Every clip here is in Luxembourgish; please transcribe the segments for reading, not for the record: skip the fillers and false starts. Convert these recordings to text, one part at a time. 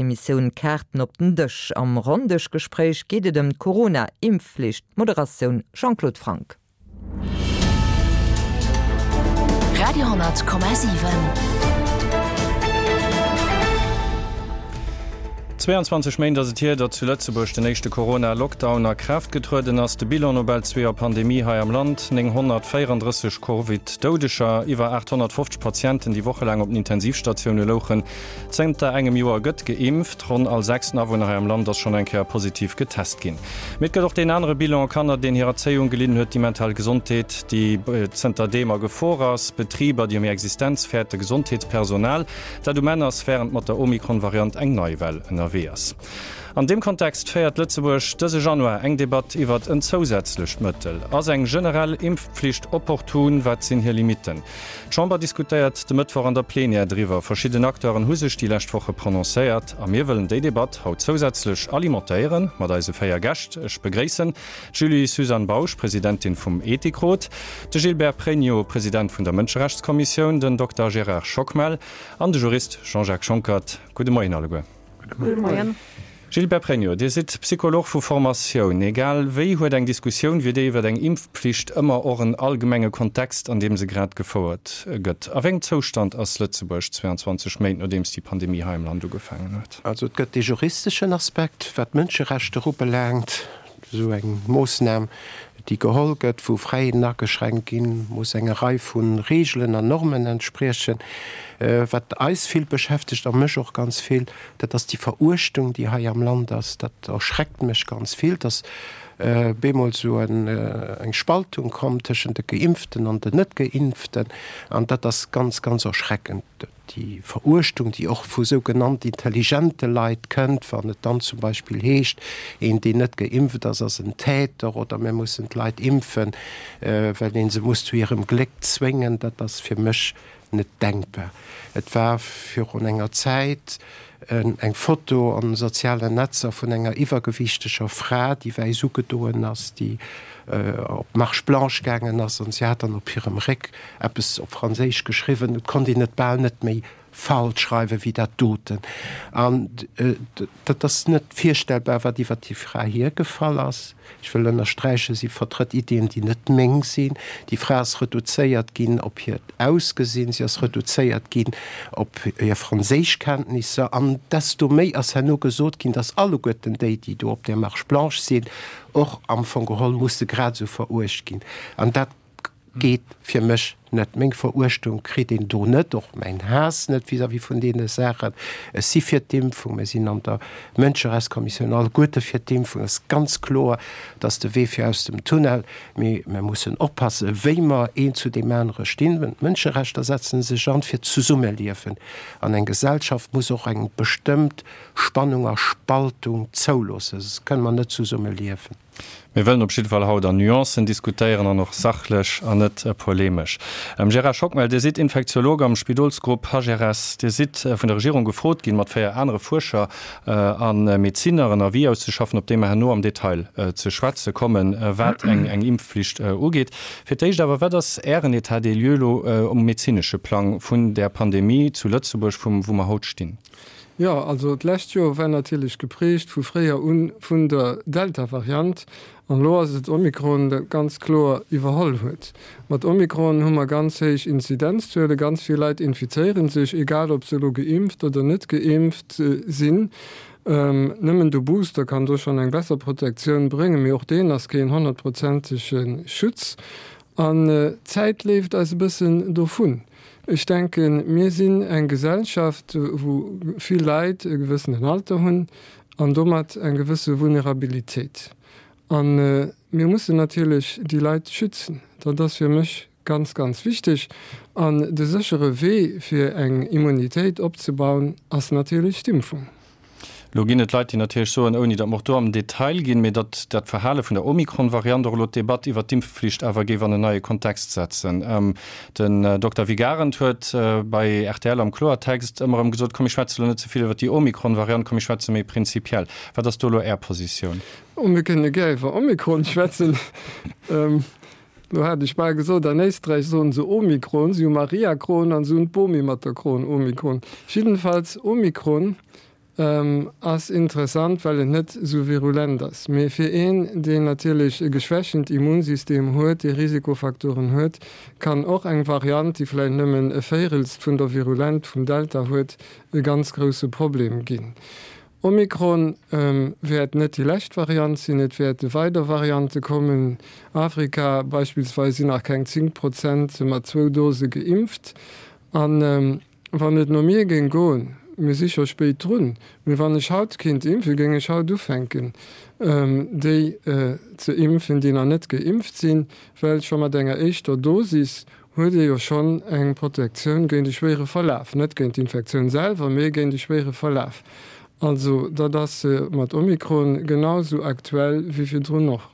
Emissioun Kaarten op den Dësch. Am Ronndëschgespréich geet et ëm d'Corona-Impfflicht. Moderatioun Jean-Claude Franck. Radio,7. 22 Méint ass et hier, datt zu Lëtzebuerg den éischte Corona-Lockdown a Kraaft getrueden ass. De Bilan no bal zwee Joer Pandemie hei am Land, 934 Covid-Doudeger, iwwer 850 Patienten, déi wochelaang op den Intensivstatioune louchen. Zënter engem Joer gëtt geimpft. Ronn all sechsten Awunner hei am Land ass schonn eng Kéier positiv getest ginn. Mee et gëtt och deen anere Bilan, Kanner, deen hir Erzéiung gelidden huet, déi mental Gesondheet, déi zënter deem a Gefor ass, Betriber, déi ëm hir Existenz fäerten, Gesondheetspersonal, Dat um Enn ass, wärend mat der Omikron-Variant eng nei Well ënnerwee ass. An deem Kontext féiert Lëtzebuerg dëse Januar eng Debatt iwwert en zousätzlecht Mëttel. Ass eng generell Impfpflicht opportun? Wat sinn hir Limitten? D'Chamber diskutéiert de Mëttwoch an der Plenière driwwer. Verschidden Acteuren hu sech déi lescht Woche prononcéiert a mir wëllen déi Debatt haut zousätzlech alimentéiere mat eise 4 Gäscht. Ech begréissen D'Julie-Suzanne Bausch, Presidentin vum Ethikrot, de Gilbert Pregno, President vun der Mënscherechtskommissioun, den Dokter Gérard Schockmel an de Jurist Jean-Jacques Schonckert. Gudde Moien alleguer. Gudde Moien. Gilbert Pregno, Dir sidd Psycholog vu Formatioun. Egal wéi huet eng Diskussioun wéi déi iwwer eng Impfpflicht ëmmer och en allgemenge Kontext, an deem se grad gefouert gëtt. A wéi engem Zoustand ass Lëtzebuerg 22 Méint nodeems déi Pandemie hei am Land ugefaangen huet? Also et gëtt dee juristeschen Aspekt, wat d'Mënscherechter ubelaangt. Esou eng Moossnam, déi geholl gëtt, wou Fräiheeten ageschränkt ginn, muss enger Rei vu Reegelen an Normen entspriechen. Wat eis vill beschäftegt a mech och ganz vill, dat ass déi Veruechtung, déi hei am Land ass. Dat erschreckt mech ganz vill, dass bemol esou eng Spaltung komm tëschent de Geimpften an den Net-Geimpften. An dat ass ganz, ganz erschreckend. Déi Veruechtung, déi och vu sou genannt intelligente Leit kënnt, wann et dann zum Beispill heescht, een, deen net geimpft ass, ass en Täter oder mir mussen d'Leit impfen, well een se muss zu hirem Gléck zwéngen, dat ass fir mech net denkbar. Et war virun enger Zäit eng Foto an de sozialen Netzer vun enger iwwergewiichteger Fra, déi wäiss ugedoen ass, déi op d'Marche blanche gaangen ass an si hat dann op hirem Réck eppes op Franséisch geschriwwen, et konnt een et bal net méi falsch schreiwen wéi dat doten. An dat ass net virstellbar, wat iwwer déi Fra hiergefall ass. Ech wëll ënnersträichen, si vertrëtt Iddien, déi net meng sinn. Déi Fra ass reduzéiert ginn op hiert Ausgesinn, si ass reduzéiert ginn op hir Franséischkenntnisser. An desto méi ass herno gesot ginn, datt alleguerten déi, déi do op där Marche blanche sinn, och am Fong geholl musse grad esou veruecht ginn. An dat Geet fir mech net. Meng Veruechtung kritt een do net, och mäin Haass net vis-à-vis vun deene Saachen. Ech si fir d'Impfung. Mir sinn an der Mënscherechtskommissioun alleguerte fir d'Impfung. Et ass ganz kloer, dat ass de Wee fir aus dem Tunnel. Mee mir mussen oppassen, wéi mer een zu deem anere stinn. D'Mënscherechter setzen sech an fir d'Zesummeliewen. An eng Gesellschaft muss och eng bestëmmt Spannung a Spaltung zouloossen, soss kënne mer net zesumme liewen. Mir wëllen op jidde Fall haut an Nuancen diskutéieren an och sachlech an net polemesch. Gérard Schockmel, Dir sidd Infektiolog am Spidolsgrupp HRS. Dir sidd vun der Regierung gefrot ginn, mat 4 anere Fuerscher a Medezinner en Avis auszeschaffen, op dee mer herno am Detail ze schwätze kommen, wat eng Impfflicht ugeet. Fir d'éischt awer, Wat ass Ären État des lieux elo um medezinesche Plang vun där Pandemie zu Lëtzebuerg, wou mer haut stinn? Jo, also d'lescht Joer war natierlech geprägt vu fréier un vun der Delta-Variant an elo ass et Omikron, dat ganz kloer iwwerholl huet. Mat Omikron hu mer ganz héich Inzidenzzuele, ganz vill Leit infizéiere sech, egal ob se elo geimpft oder net geimpft sinn. Nëmmen de Booster kann do schonn eng besser Protektioun bréngen, mee och deen ass keen honnertprozentege Schutz an d'Zäit leeft eis e bëssen dovun. Ech denken, mir sinn eng Gesellschaft, wou vill Leit e gewëssenen Alter hunn an domat eng gewësse Vulnerabilitéit. A mir mussen natierlech déi Leit schützen. Dat ass fir mech ganz, ganz wichteg. An de séchere Wee, fir eng Immunitéit opzebauen, ass natierlech d'Impfung. Elo ginn et Leit, déi natierlech soen, ouni datt mer och do am Detail ginn, mee datt dat Verhale vun der Omikron-Variant och elo d'Debatt iwwert d'Impfflicht awer géif an en neie Kontext setzen. Den Dokter Vic Arendt huet bei rtl am Kloertext ëmmer erëm gesot, komm mir schwätze elo net ze vill iwwert déi Omikron-Variant, komm mir schwätze méi prinzipiell. Wat ass do elo Är Positioun? Oh, mir kënne gär iwwer Omikron schwätzen. Elo hat ech bal gesot, an Éisträich soen se Omikron, si hu Mariakron an se hunn d'Bomi mat der Kron, Omikron. Jiddenfalls, Omikron. Ass interessant, well et net esou virulent ass. Mee fir een, deen natierlech e geschwächent Immunsystem huet, dee Risikofaktoren huet, kann och eng Variant, déi vläicht nëmmen e Véirelst vun der Virulent vum Delta huet, e ganz grousse Problem ginn. Omikron wäert net déi lescht Variant sinn, et wäerte weider Variante kommen. Afrika beispillsweis sinn nach keng 10 Prozent mat zwou Dose geimpft. An Wann et no mir géing goen, mir si scho spéit drun, mee wann ech haut kinnt impfen, géing ech haut ufänken, déi ze impfen, déi nach net geimpft sinn, well scho mat enger éischter Dosis huet ee jo schonn eng Protektioun géint e schwéiere Verlaf, net géint d'Infektioun selwer, mee géint e schwéiere Verlaf. Also dat ass mat Omikron genau esou aktuell wéi virdrun och.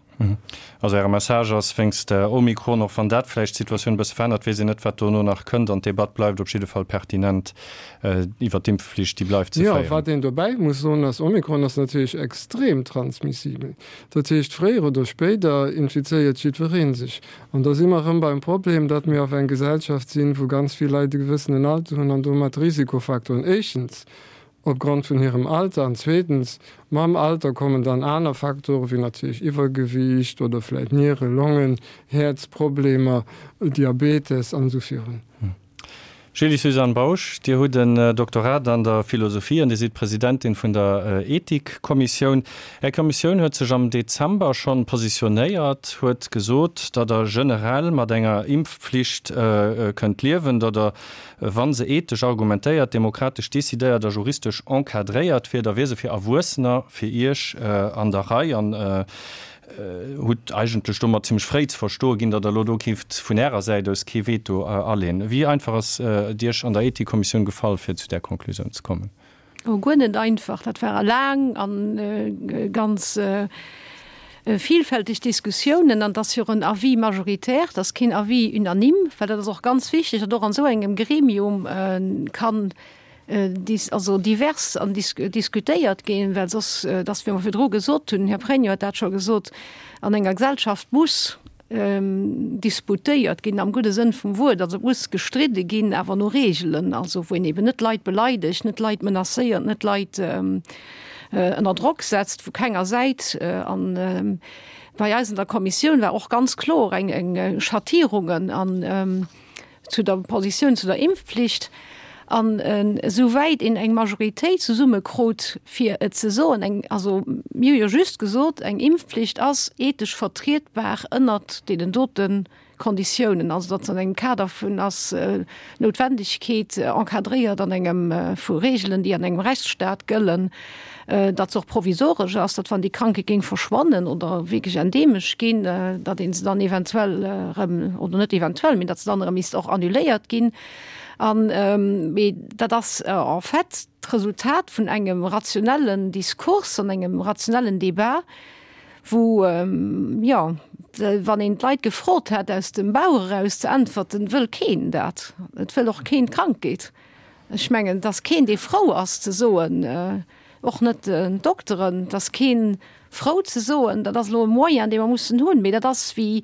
Also Äre Message ass, wéinst Omikron, och wann dat vläicht d'Situatioun e bësse verännert, weess een net, wat dono nach kënnt an d'Debatt bleift op jidde Fall pertinent iwwert d'Impfflicht, déi bleift ze féieren. Jo, wat een dobäi muss soen ass, Omikron ass natierlech extrem transmissibel. Dat heescht, fréier oder spéider infizéiert jiddweree sech. An da si mer erëm beim Problem, datt mir auf eng Gesellschaft sinn, wou ganz vill Leit e gewëssenen Alter hunn an domat Risikofaktoren, éischtens Opgrond vun hirem Alter an zweetens, mam Alter kommen dann aner Faktoren, wéi natierlech Iwwergewiicht oder vläicht Niere-, Longen-, Häerzproblemer, Diabetes an esou virun. Julie-Suzanne Bausch, Dir hutt en Doktorat an der Philosophie an Dir sidd Presidentin vun der Ethikkommissioun. Är Kommissioun huet sech am Dezember schonn positionéiert, huet gesot, datt Der generell mat enger Impfpflicht kënnt liewen, datt Der Wa se ethesch argumentéiert, demokratesch decidéiert a juristesch encadréiert wier, da wier se fir Erwuessener, fir Iech, an der Rei an hutt eigentlech domat zimmlech fréi ze verstoe ginn, datt Der elo do géift vun Ärer Säit aus kee Veto aleen. Wéi einfach ass et Iech an der Ethikkommissioun gefall, fir zu där Conclusioun ze kommen? Oh, guer net einfach. Dat ware laang a ganz vielfälteg Diskussiounen. An et ass jo och en Avis majoritaire, et ass keen Avis unanime, well dat ass och ganz wichteg, datt och an esou engem Gremium kann also divers an diskutéiert ginn, well soss, et ass wéi mer virdru gesot hunn, den Här Pregno huet dat scho gesot, an enger Gesellschaft muss disputéiert ginn am gudde Sënn vum Wuert, also et muss gestridde ginn, awer no Reegelen, also wou een eben net Leit beleidegt, net Leit menacéiert, net Leit ënner Drock setzt vu kenger Säit. An bei eis an der Kommissioun war och ganz kloer eng Schattierungen an zu der Positioun zu der Impfpflicht. An esou wäit een eng Majoritéit zesumme krut, fir et ze soen, eng, also mir hu jo just gesot, eng Impfpflicht ass ethesch vertrietbar ënnert deenen dote Konditiounen, also datt se an engem Kader vun ass Noutwendegkeet encadréiert an engem vu Regeln, déi an engem Rechtsstaat gëllen, datt se och provisoresch ass, datt wann déi Krankheet géing verschwannen oder wierklech endeemesch ginn, datt ee se dann eventuell erëm, oder net eventuell, mee datt se dann erëm misst och annuléiert ginn. An, mee dat ass en fait d'Resultat vun engem rationellen Diskurs an engem rationellen Débat, wou, jo, wann een d'Leit gefrot hätt, aus dem Bauch eraus ze äntwerten, wëll keen dat. Et wëll och keen d'Krankheet. Ech mengen, et ass keen, dee frou ass ze soen, och net d'Dokteren, et ass kee frou ze soen, dat ass elo e Moyen, dee mer mussen hunn. Mee dat ass wéi,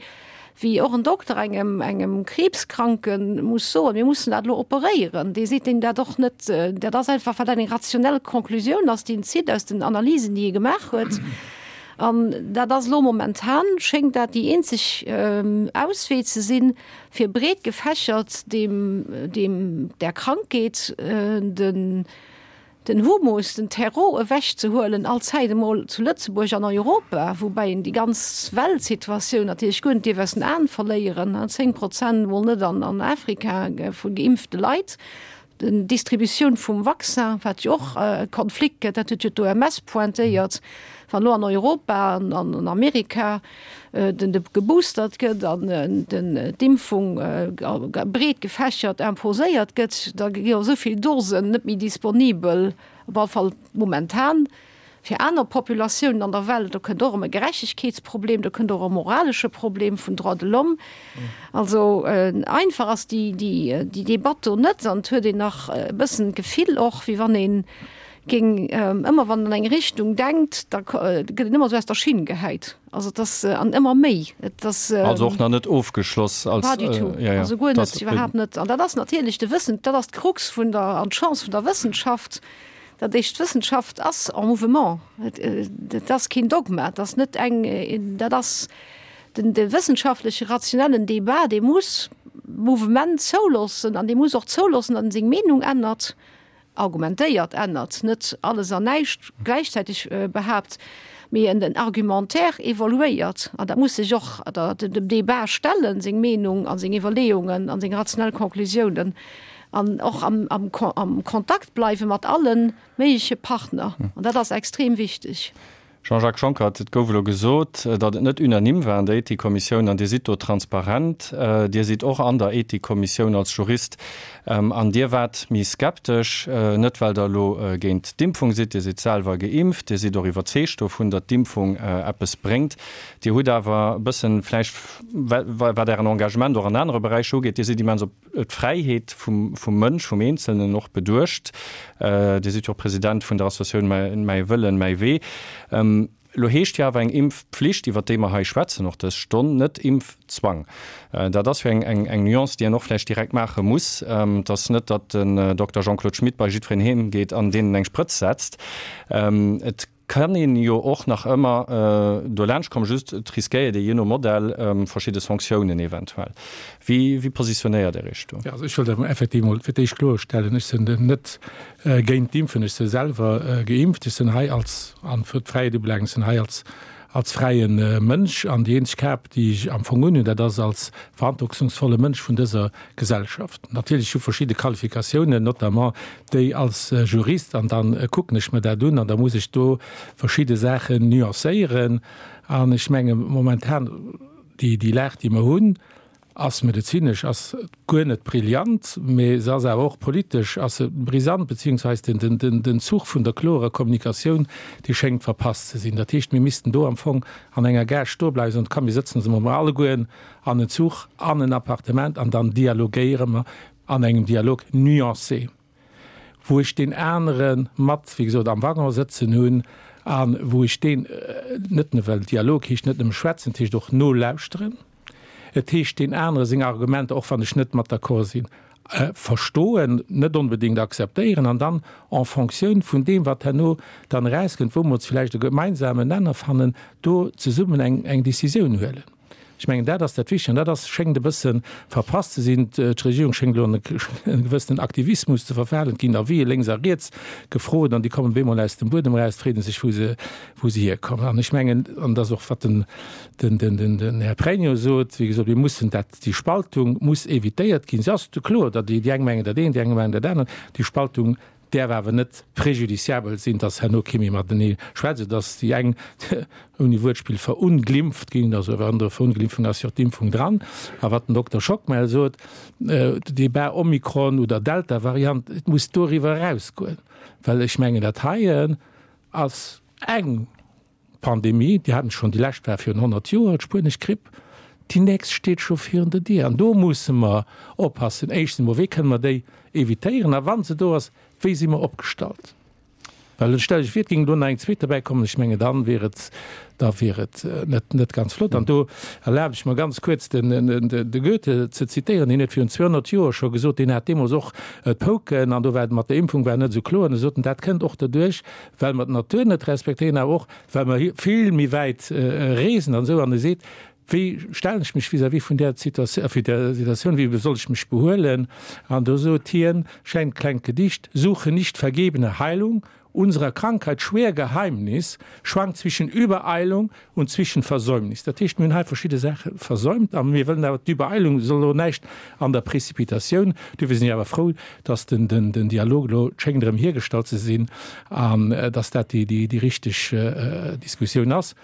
wéi och en Dokter engem, engem Kriibskranke muss soen, mir mussen dat elo operéieren. Dee seet deem dat och net. Dat ass einfach, wat eng rationell Conclusioun ass, déi en zitt aus den Analysen, déi e gemaach huet. An dat ass elo momentan, schéngt dat déi eenzeg Auswee ze sinn, fir breet gefächert deem, deem, där Krankheet den, den Humus, den Terreau ewechzehuelen, allzäit emol zu Lëtzebuerg an Europa, woubäi een déi ganz Weltsituatioun natierlech guer net dierf aus den Aen verléieren, 10 Prozent emol net an, an Afrika vu geimpfte Leit. D'Distributioun vum Vaccin, wat jo och e Konflikt gëtt, dat huet jo d'OMS pointéiert, wann elo an Europa an an Amerika den de geboostert gëtt an den d'Impfung breet gefächert imposéiert gëtt, da gi jo esou vill Dosen net méi disponibel, op alle Fall momentan. Fir aner Populatiounen an der Welt, do kënnt och erëm e Gerechtegkeetsproblem, do kënnt och e moralesche Problem vun Droits de l'homme. Also einfach ass déi, déi, déi Debatt do net an et huet een nach e bëssen d'Gefill och, wéi wann ee géing ëmmer, wann een an eng Richtung denkt, da gëtt een ëmmer esou aus der Schinn gehäit. Also et ass, an ëmmer méi, et ass. Also och nach net ofgeschloss als. Pas du tout, also guer net, iwwerhaapt net. An dat ass natierlech de Wëssen, dat ass d'Krux vun der an d'Chance vun der Wëssenschaft. Dat heescht, d'Wëssenschaft ass en mouvement. Dat ass keen Dogma, dat ass net eng, dat ass den de wëssenschaftleche rationellen Débat, dee muss Mouvement zouloossen an dee muss och zouloossen, datt en seng Meenung ännert, argumentéiert ännert, net alles an näischt gläichzäiteg behaapt, mee en den Argumentaire evoluéiert an dat muss sech och dem Débat stellen, seng Meenung a seng Iwwerleeungen a seng rationell Conclusiounen an och am Kontakt bleiwe mat alle méigleche Partner. An dat ass extrem wichteg. Jean-Jacques Schonckert, Et gouf elo gesot, datt et net unanime war an der Ethikkommissioun an Dir sidd do transparent. Dir sidd och an der Ethikkommissioun als Jurist an Dir waart méi skeptesch, net well Der elo géint d'Impfung sidd, Dir sidd selwer geimpft, Dir sidd och iwwerzeegt dovun, datt d'Impfung eppes bréngt. Dir hutt awer e bëssen vläicht, wat Ären Engagement och an anere Beräicher ugeet, Dir sidd immens op d'Fräiheet vum Mënsch, vum Eenzelnen och beduecht. Dir sidd jo och President vun der Associatioun Mäi Wëllen, mäi Wee. Elo heescht jo awer eng Impfpflicht, iwwer déi mer hei schwätzen och dës Stonn, net Impfzwang. Dat ass jo eng Nuance, déi een och vläicht direkt maache muss. Et ass net, datt den Dokter Jean-Claude Schmit bei jiddwereen heem geet an deenen eng Sprëtz setzt. Et Kann een jo och nach ëmmer dolaanscht kommen, just et riskéiert ee jee no Modell verschidde Sanktiounen eventuell. Wéi wéi positionéiert Dir Iech do? Jo, also ech wëllt awer effektiv emol fir d'éischt kloerstellen, ech sinn net géint d'Impfen, ech si selwer geimpft, ech sinn hei als, an fir d'Fräiheet ubelaangt, ech sinn hei als als fräie Mënsch an déi eenzeg Kap, déi ech am Fong unhunn, dat ass als verantwortungsvolle Mënsch vun dëser Gesellschaft. Natierlech hu verschidde Qualifikatiounen, notamment déi als Jurist, an da kucken ech mer dat un an da muss ech do verschidde Saachen nuancéieren. An ech menge momentan, déi Lag, déi mer hunn, ass medezinesch ass guer net brillant, mee se ass awer och politesch ass se brisant, beziehungsweise den, den, den Zuch vun der klorer Kommunikatioun, dee schéngt verpasst ze sinn. Dat heescht, mir missten do am Fong an enger Gare stoe bleiwen, soen, komm mir sëtzen ons emol allegueren an en Zuch, an en Appartement an dann dialogéiere mer an engem Dialog nuancé. wou ech deen anere mat, wéi gesot, am Waggon sëtzen hunn a wou ech deen net nëmme, well Dialog heescht net nëmme schwätzen, et heescht och nolauschteren, et heescht deen anere seng Argumenter, och wann ech net mat d'accord sinn, verstoen, net onbedéngt akzeptéieren an dann en Fonctioun vun deem, wat herno dann erauskënnt, wou mer ons vläicht e gemeinsamen Nenner fannen, do zesummen eng Décisioun huelen. Ech mengen, dat ass dat Wichtige an dat ass, schéngt e bësse verpasst ze sinn. D'Regierung schéngt elo an e gewëssenen Aktivismus ze verfalen. Et ginn Avisë lénks a riets gefrot an déi kommen op eemol aus dem Buedem eraus, et freet ee sech, wou se, wou se hierkommen. An ech mengen, an dat ass och, wat den, den, den, den, den Här Pregno sot, wéi gesot, mir mussen dat, déi Spaltung muss évitéiert ginn. Se ass kloer, datt déi eng mengen dat eent, déi aner mengen dat anert. Déi Spaltung däerf awer net préjudiciabel sinn, dass herno kee méi matenee schwätzt, esou dass déi eng, ouni Wuertspill, verunglimpft ginn, also an der Verunglimpfung ass jo och d'Impfung dran. A wat den Dokter Schockmel sot, Débat Omikron oder Delta-Variant, et muss doriwwer erausgoen, well ech mengen, dat heien ass eng Pandemie, déi haten schonn, déi lescht war virun 100 Joer, d'spuenesch Gripp, déi nächst steet scho virun der Dier. An do musse mer oppassen, éischtens emol, wéi kënne mer déi evitéieren a wa se do ass, wéi si mer opgestallt? Well stellt Iech vir, et géing elo nach eng zweet derbäi kommen, ech mengen, da wier et, da wier et net, net ganz flott. An do erlabe ech mer ganz kuerz den, de Goethe ze zitéieren, deen huet virun 200 Joer scho gesot, deen hat deemools och d'Pouken an do war et mat der Impfung war net esou kloer, an e sot en, dat kënnt och doduerch, well mer d'Natur net respektéieren, awer och well mer vill méi wäit reesen an esou. An e seet, Wéi stellen ech mech vis-à-vis vun där Situatioun, wéi soll ech mech behuelen? An do sot hien, schéint klengt Gedicht, Suche nicht vergebene Heilung, unserer Krankheit schwer Geheimnis schwankt zwischen Übereilung und zwischen Versäumnis. Dat heescht, mir hunn hei verschidde Saache versäumt a mir wëllen awer, d'Übereilung soll elo näischt an der Précipitatioun. Duerfir sinn ech awer frou, dass den Dialog elo schéngt erëm hiergestallt ze sinn an dass dat déi richteg Diskussioun ass.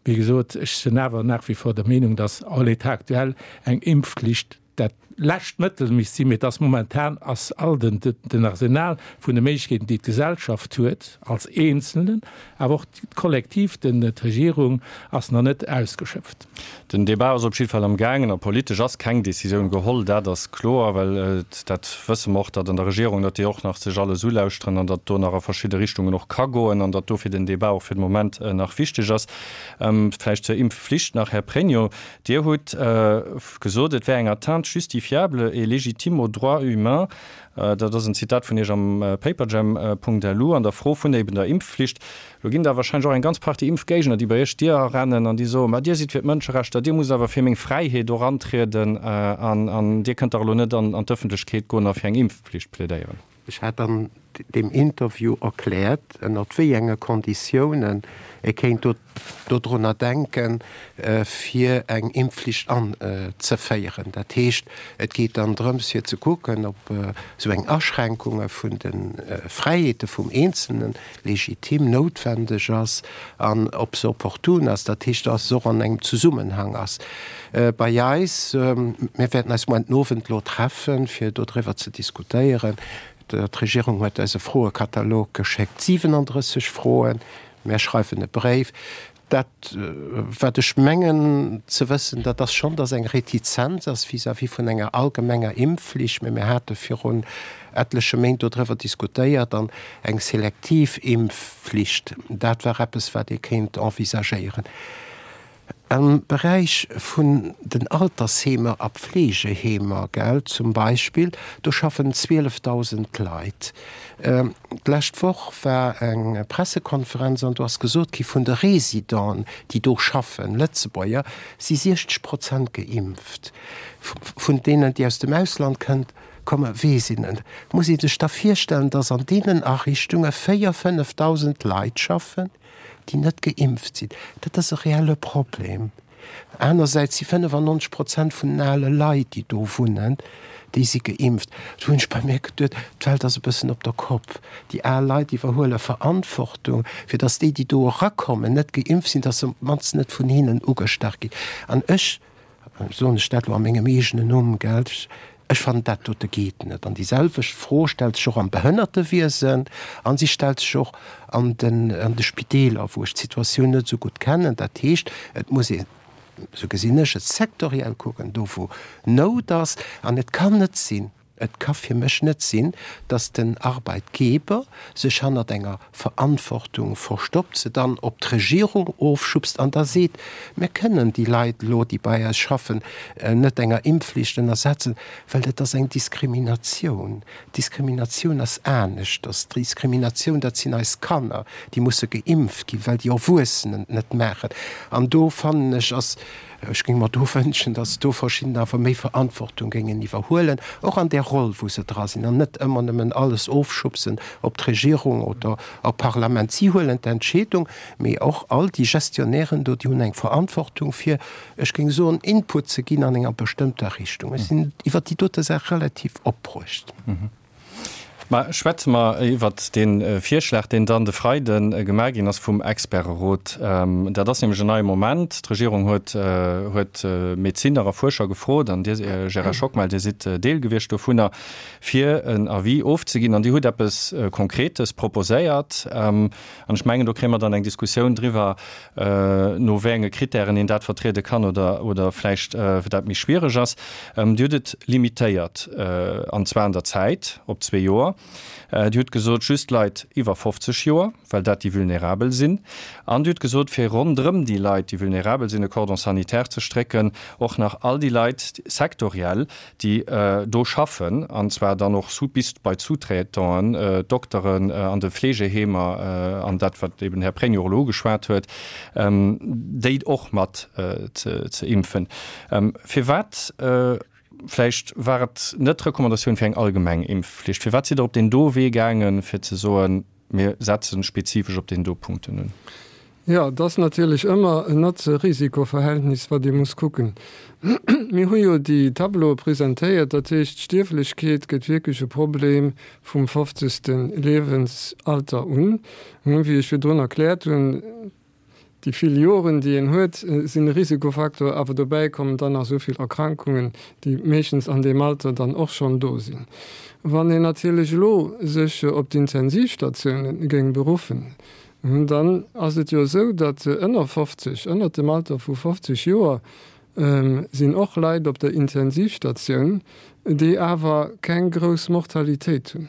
Wéi gesot, ech sinn awer nach wie vor der Meenung, dass en l'état actuel eng Impfflicht dat lescht Mëttel misst sinn, mee et ass momentan ass all den den Arsenal vun de Méiglechkeeten, déi d'Gesellschaft huet als Eenzelnen, awer och kollektiv den d'Regierung, ass nach net ausgeschöpft. Den Débat ass op jidde Fall am gaangen a politesch ass keng Décisioun geholl, dat ass kloer, well dat wësse mer och, datt an der Regierung, datt déi och nach sech alles ulauschteren an datt do nach a verschidde Richtungen och ka goen an datt dofir den Débat och fir de Moment nach wichteg ass. Vläicht zur Impfflicht nach, Här Pregno, Dir hutt gesot, et wär eng Atteinte justifiée. justifiable et légitime aux droits humains. Dat ass en Zitat vun Iech am Paperjam.lu an der Fro vun eben der Impfflicht. Lo ginn der wahrscheinlech och eng ganz Partie Impfgéigner, déi bei Iech d'Dier arennen an déi soen, Ma Dir sidd fir d'Mënscherechter, Dir musst awer fir meng Fräiheet och antrieden an Dir kënnt dach elo net an d'Ëffentlechkeet goen a fir eng Impfpflicht plädéieren. Ech hat an deem Interview erkläert, ënnert wéi enge Konditiounen ee kéint dodrunner denken, fir eng Impfflicht anzeféieren. Dat heescht, et geet dann drëms, fir ze kucken, ob esou eng Aschränkunge vun de Fräiheete vum Eenzelnen legitim, noutwendeg ass an ob se opportun ass, dat heescht, dass se och an engem Zesummenhang ass. Bei eis, mir wäerten eis muer den Owend elo treffen, fir dodriwwer ze diskutéieren. D'Regierung huet eis e Froekatalog geschéckt, 37 Froen. Mär schreiwen e Bréif. Dat, wat ech mengen ze wëssen, dat ass schonn, dass eng Retizenz ass vis-à-vis vun enger allgemenger Impfflicht. Mä mir hate virun etleche Méint dodriwwer diskutéiert an eng selektiv Impfflicht, dat war eppes, wat ee kéint envisagéieren. Am Beräich vun den Altersheemer a Pflegeheemer, gell, zum Beispill, do schaffen 12.000 Leit. D'lescht Woch war eng Pressekonferenz an do ass gesot gi vun de Residenten, déi do schaffen, Lëtzebuerger, si 60 Prozent geimpft. Vun deenen, déi aus dem Ausland kënnt, kommen, weess een net. Muss ee sech da virstellen, datt an deenen Ariichtunge 4.000, 5.000 Leit schaffen, déi net geimpft sinn. Dat ass e reelle Problem. Anersäits si 95 Prozent vun den ale Leit, déi do wunnen, déi si geimpft. Do hunn ech bei mir geduet, d'Welt ass e bëssen op der Kopp. Déi al Leit iwwerhuele Verantwortung, fir datt déi, déi do erakommen, net geimpft sinn, datt se op d'mannst net vun hinnen ugestach ginn. An ech, soen ech dat elo a mengem eegenen Numm, gell, ech fannen, dat dote geet net. An déi selwecht Fro stellt sech och am Behënnertewiesen a si stellt sech och an den, an de Spideeler, wou ech d'Situatioun net esou gutt kennen. Dat heescht, et muss een, esou gesinn ech et, sektoriell kucken, do wou Nout ass. An et kann net sinn, Et ka fir mech net sinn, dass den Arbeitgeber sech hannert enger Verantwortung verstoppt, se dann op d'Regierung ofschubst an da seet, mir kënnen déi Leit elo, déi bei eis schaffen, net enger Impfflicht ënnersetzen, well dat ass eng Diskriminatioun. Diskriminatioun ass aneschters. Diskriminatioun, dat sinn eis Kanner, déi musse geimpft ginn, well déi Erwuessenen et net maachen. An do fannen ech, ass Ech géing mer do wënschen, datt do verschidden awer méi Verantwortung géingen iwwerhuelen, och an där Roll, wou se dra sinn, an net ëmmer nëmmen alles ofschubsen op d'Regierung oder op d'Parlament. Si huelen d'Entscheedung, mee och all déi Gestionnairen do, déi hunn eng Verantwortung fir, ech géing soen, Input ze ginn an enger bestëmmter Richtung. Ech sinn iwwert déi dote Saach relativ opbruecht. Mä schwätze mer iwwert dee Virschlag, deen dann de Freide gemaach ginn ass vum Experterot. Dat ass nämlech en neie Moment. D'Regierung huet huet Medezinner a Fuerscher gefrot, an Dir, Gérard Schockmel, Dir sidd Deel gewiescht dovunner, fir en Avis ofzeginn. An Dir hutt eppes Konkretes proposéiert. An ech mengen, do kréie mer dann eng Diskussioun driwwer, no wéi enge Kritären een dat vertriede kann oder, oder vläicht dat méi schwiereg ass. Dir hutt et limitéiert, an zwar an der Zäit op zwee Joer. Dir hutt gesot, just Leit iwwer 50 Joer, well dat déi Vulnerabel sinn. An Dir hutt gesot, fir ronderëm déi Leit, déi vulnerabel sinn, e Cordon sanitaire ze strécken, och nach all déi Leit sektoriell, déi do schaffen, an zwar dann och bis bei d'Sous-traitanten, d'Dokteren an de Fleegeheemer an dat, wat eben den Här Pregno och elo ugeschwat huet, déi och mat ze impfen. Firwat, vläicht war et net d'Recommandatioun fir eng allgemeng Impfflicht, firwat sidd Der op deen do Wee gaangen, fir ze soen, Mir setzen spezifesch op deen do Punkten un. Jo, et ass natierlech ëmmer en Notze-Risiko-Verhältnis, wat ee muss kucken. Mir hu jo déi Tableaue presentéiert, dat heescht, d'Stierflechkeet gëtt wierklech e Problem vum fofzegste Liewensalter un. Wéi ech virdrun erkläert hunn, Déi vill Joren, déi een huet, sinn e Risikofaktor, awer dobäi kommen dann nach esou vill Erkrankungen, déi meeschtens an deem Alter dann och schonn do sinn. Wann een natierlech elo sech op d'Intensivstatioune géing beruffen, dann ass et jo esou, datt ënner 50, ënnert dem Alter vu 50 Joer sinn och Leit op der Intensivstatioun, déi awer keng grouss Mortalitéit hunn.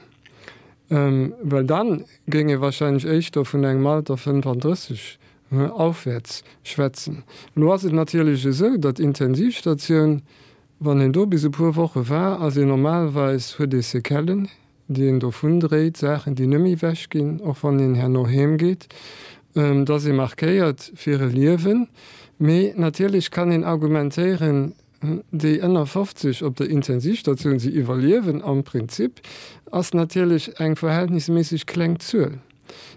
Well dann géing ee wahrscheinlech éischter vun engem Alter 35 aufwäerts schwätzen. Elo ass et natierlech esou, datt d'Intensivstatioun. Wann een do bis e puer Woche war, ass een normalerweis, huet ee Séquellen, déi een dovun dréit, Saachen, déi net méi ewech ginn, och wann een herno heem geet. Et ass ee markéiert fir e Liewen. Mee natierlech kann een argumentéieren, déi ënner 50 op der Intensivstatioun, si iwwerliewen am Prinzip, ass natierlech eng verhältnisméisseg kleng Zuel,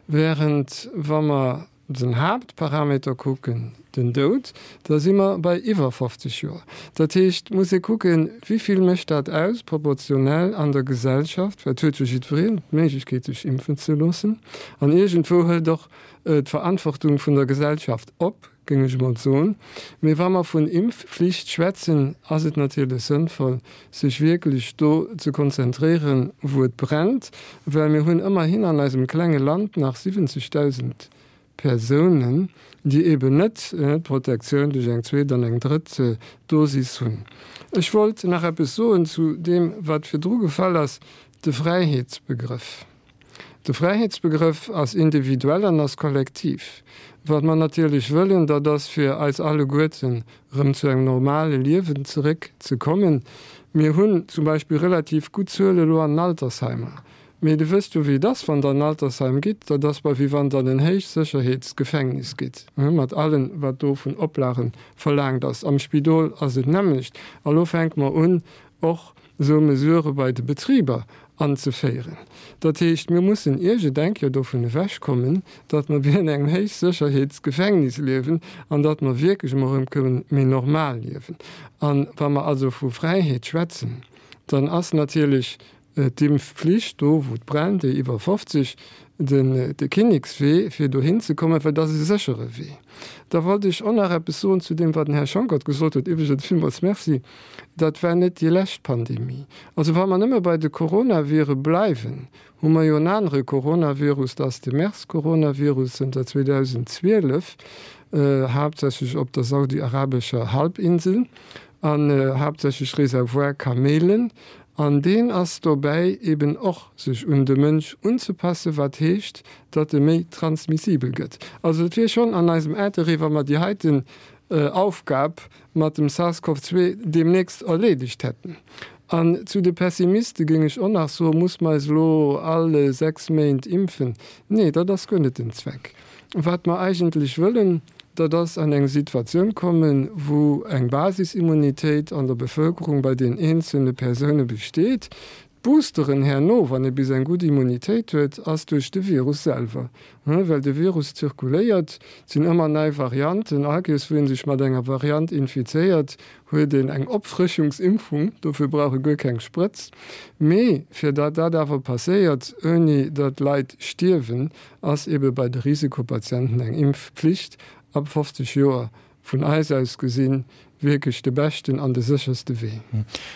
während wa mer den Haaptparameter kucken, den Doud, da si mer bei iwwer 50 Joer. Dat heescht, et muss ee kucken, wéi vill mécht dat aus proportionell an der Gesellschaft, well et huet jo jiddwereen d'Méiglechkeet sech impfen ze loossen an iergendwou hëlt och d'Verantwortung vun der Gesellschaft op, géing ech emol soen. Mee wa mer vun Impfflicht schwätzen, ass et natierlech sënnvoll, sech wierklech do ze konzentréieren, wou et brennt, well mir hunn ëmmerhin an eisem klenge Land nach 70.000 Persounen, déi eeben net d'Protektioun duerch eng zweet an eng drëtt Dosis hunn. Ech wollt nach eppes soen zu deem, wat virdru gefall ass, de Fräiheetsbegrëff. De Fräiheetsbegrëff ass individuell an ass kollektiv. Wat mer natierlech wëllen, dat ass fir eis alleguerten erëm zu engem normale Liewen zeréck ze kommen. Mir hunn zum Beispill relativ gutt Zuele elo an den Altersheimer. Mee Dir wësst jo wéi et ass, wann Der an en Altersheim gitt, dat ass bal wéi wann Der an en Héichsécherheetsgefängnis gitt, mat allem wat do vun Oplage verlaangt ass. Am Spidol ass et d'nämmlecht. A lo fänke mer un och esou Mesurë bei de Betriber anzeféieren. Dat heescht, mir mussen iergendeng Kéier dovun ewechkommen, datt mer wéi an engem Héichsécherheetsgefängnis liewen an datt mer wierklech emol erëm kënnen méi normal liewen. A wa mer also vu Fräiheet schwätzen, dann ass natierlech D'Impfflicht, do wou et brennt, déi iwwer 50, den de Kinnekswee fir dohin ze kommen, well dat ass e séchere Wee. Da wollt ech och nach eppes soen zu deem wat den Här Schonckert gesot huet, iwwregens villmools Merci, dat war net déi lescht Pandemie. Also wa mer nëmme bei de Coronavirë bleiwen, hu mer jo en anere Coronavirus, dat ass de MERS-Coronavirus zënter 2012, haaptsächlech op der saudi-arabescher Halbinsel an haaptsächlech Reservoir Kamelen, An deen ass dobäi eben och sech un de Mënsch unzepassen, wat heescht, datt e méi transmissibel gëtt. Also et wier schonn an eisem Interêt, wa mer déi heiten Aufgab mat dem SARS-CoV-2 deemnächst erleedegt hätten. An zu de Pessimiste géing ech och nach soen, Muss mer eis elo all 6 Méint impfen? Nee, dat ass guer net den Zweck. Wat mer eigentlech wëllen, dat ass an eng Situatioun kommen, wou eng Basisimmunitéit an der Bevölkerung bei den eenzelne Persoune besteet. D'Boosteren herno, wann ee bis eng gutt Immunitéit huet, ass duerch de Virus selwer, well de Virus zirkuléiert, et sinn ëmmer nei Varianten. All Kéiers wou ee sech mat enger Variant infizéiert, huet een eng Opfrëschungsimpfung, dofir brauch e guer keng Sprëtz. Mee fir datt dat awer passéiert, ouni datt Leit stierwen, ass ebe bei de Risikopatienten eng Impfpflicht ab 50 Joer vun eis aus gesinn wierklech de beschten an de sécherste Wee.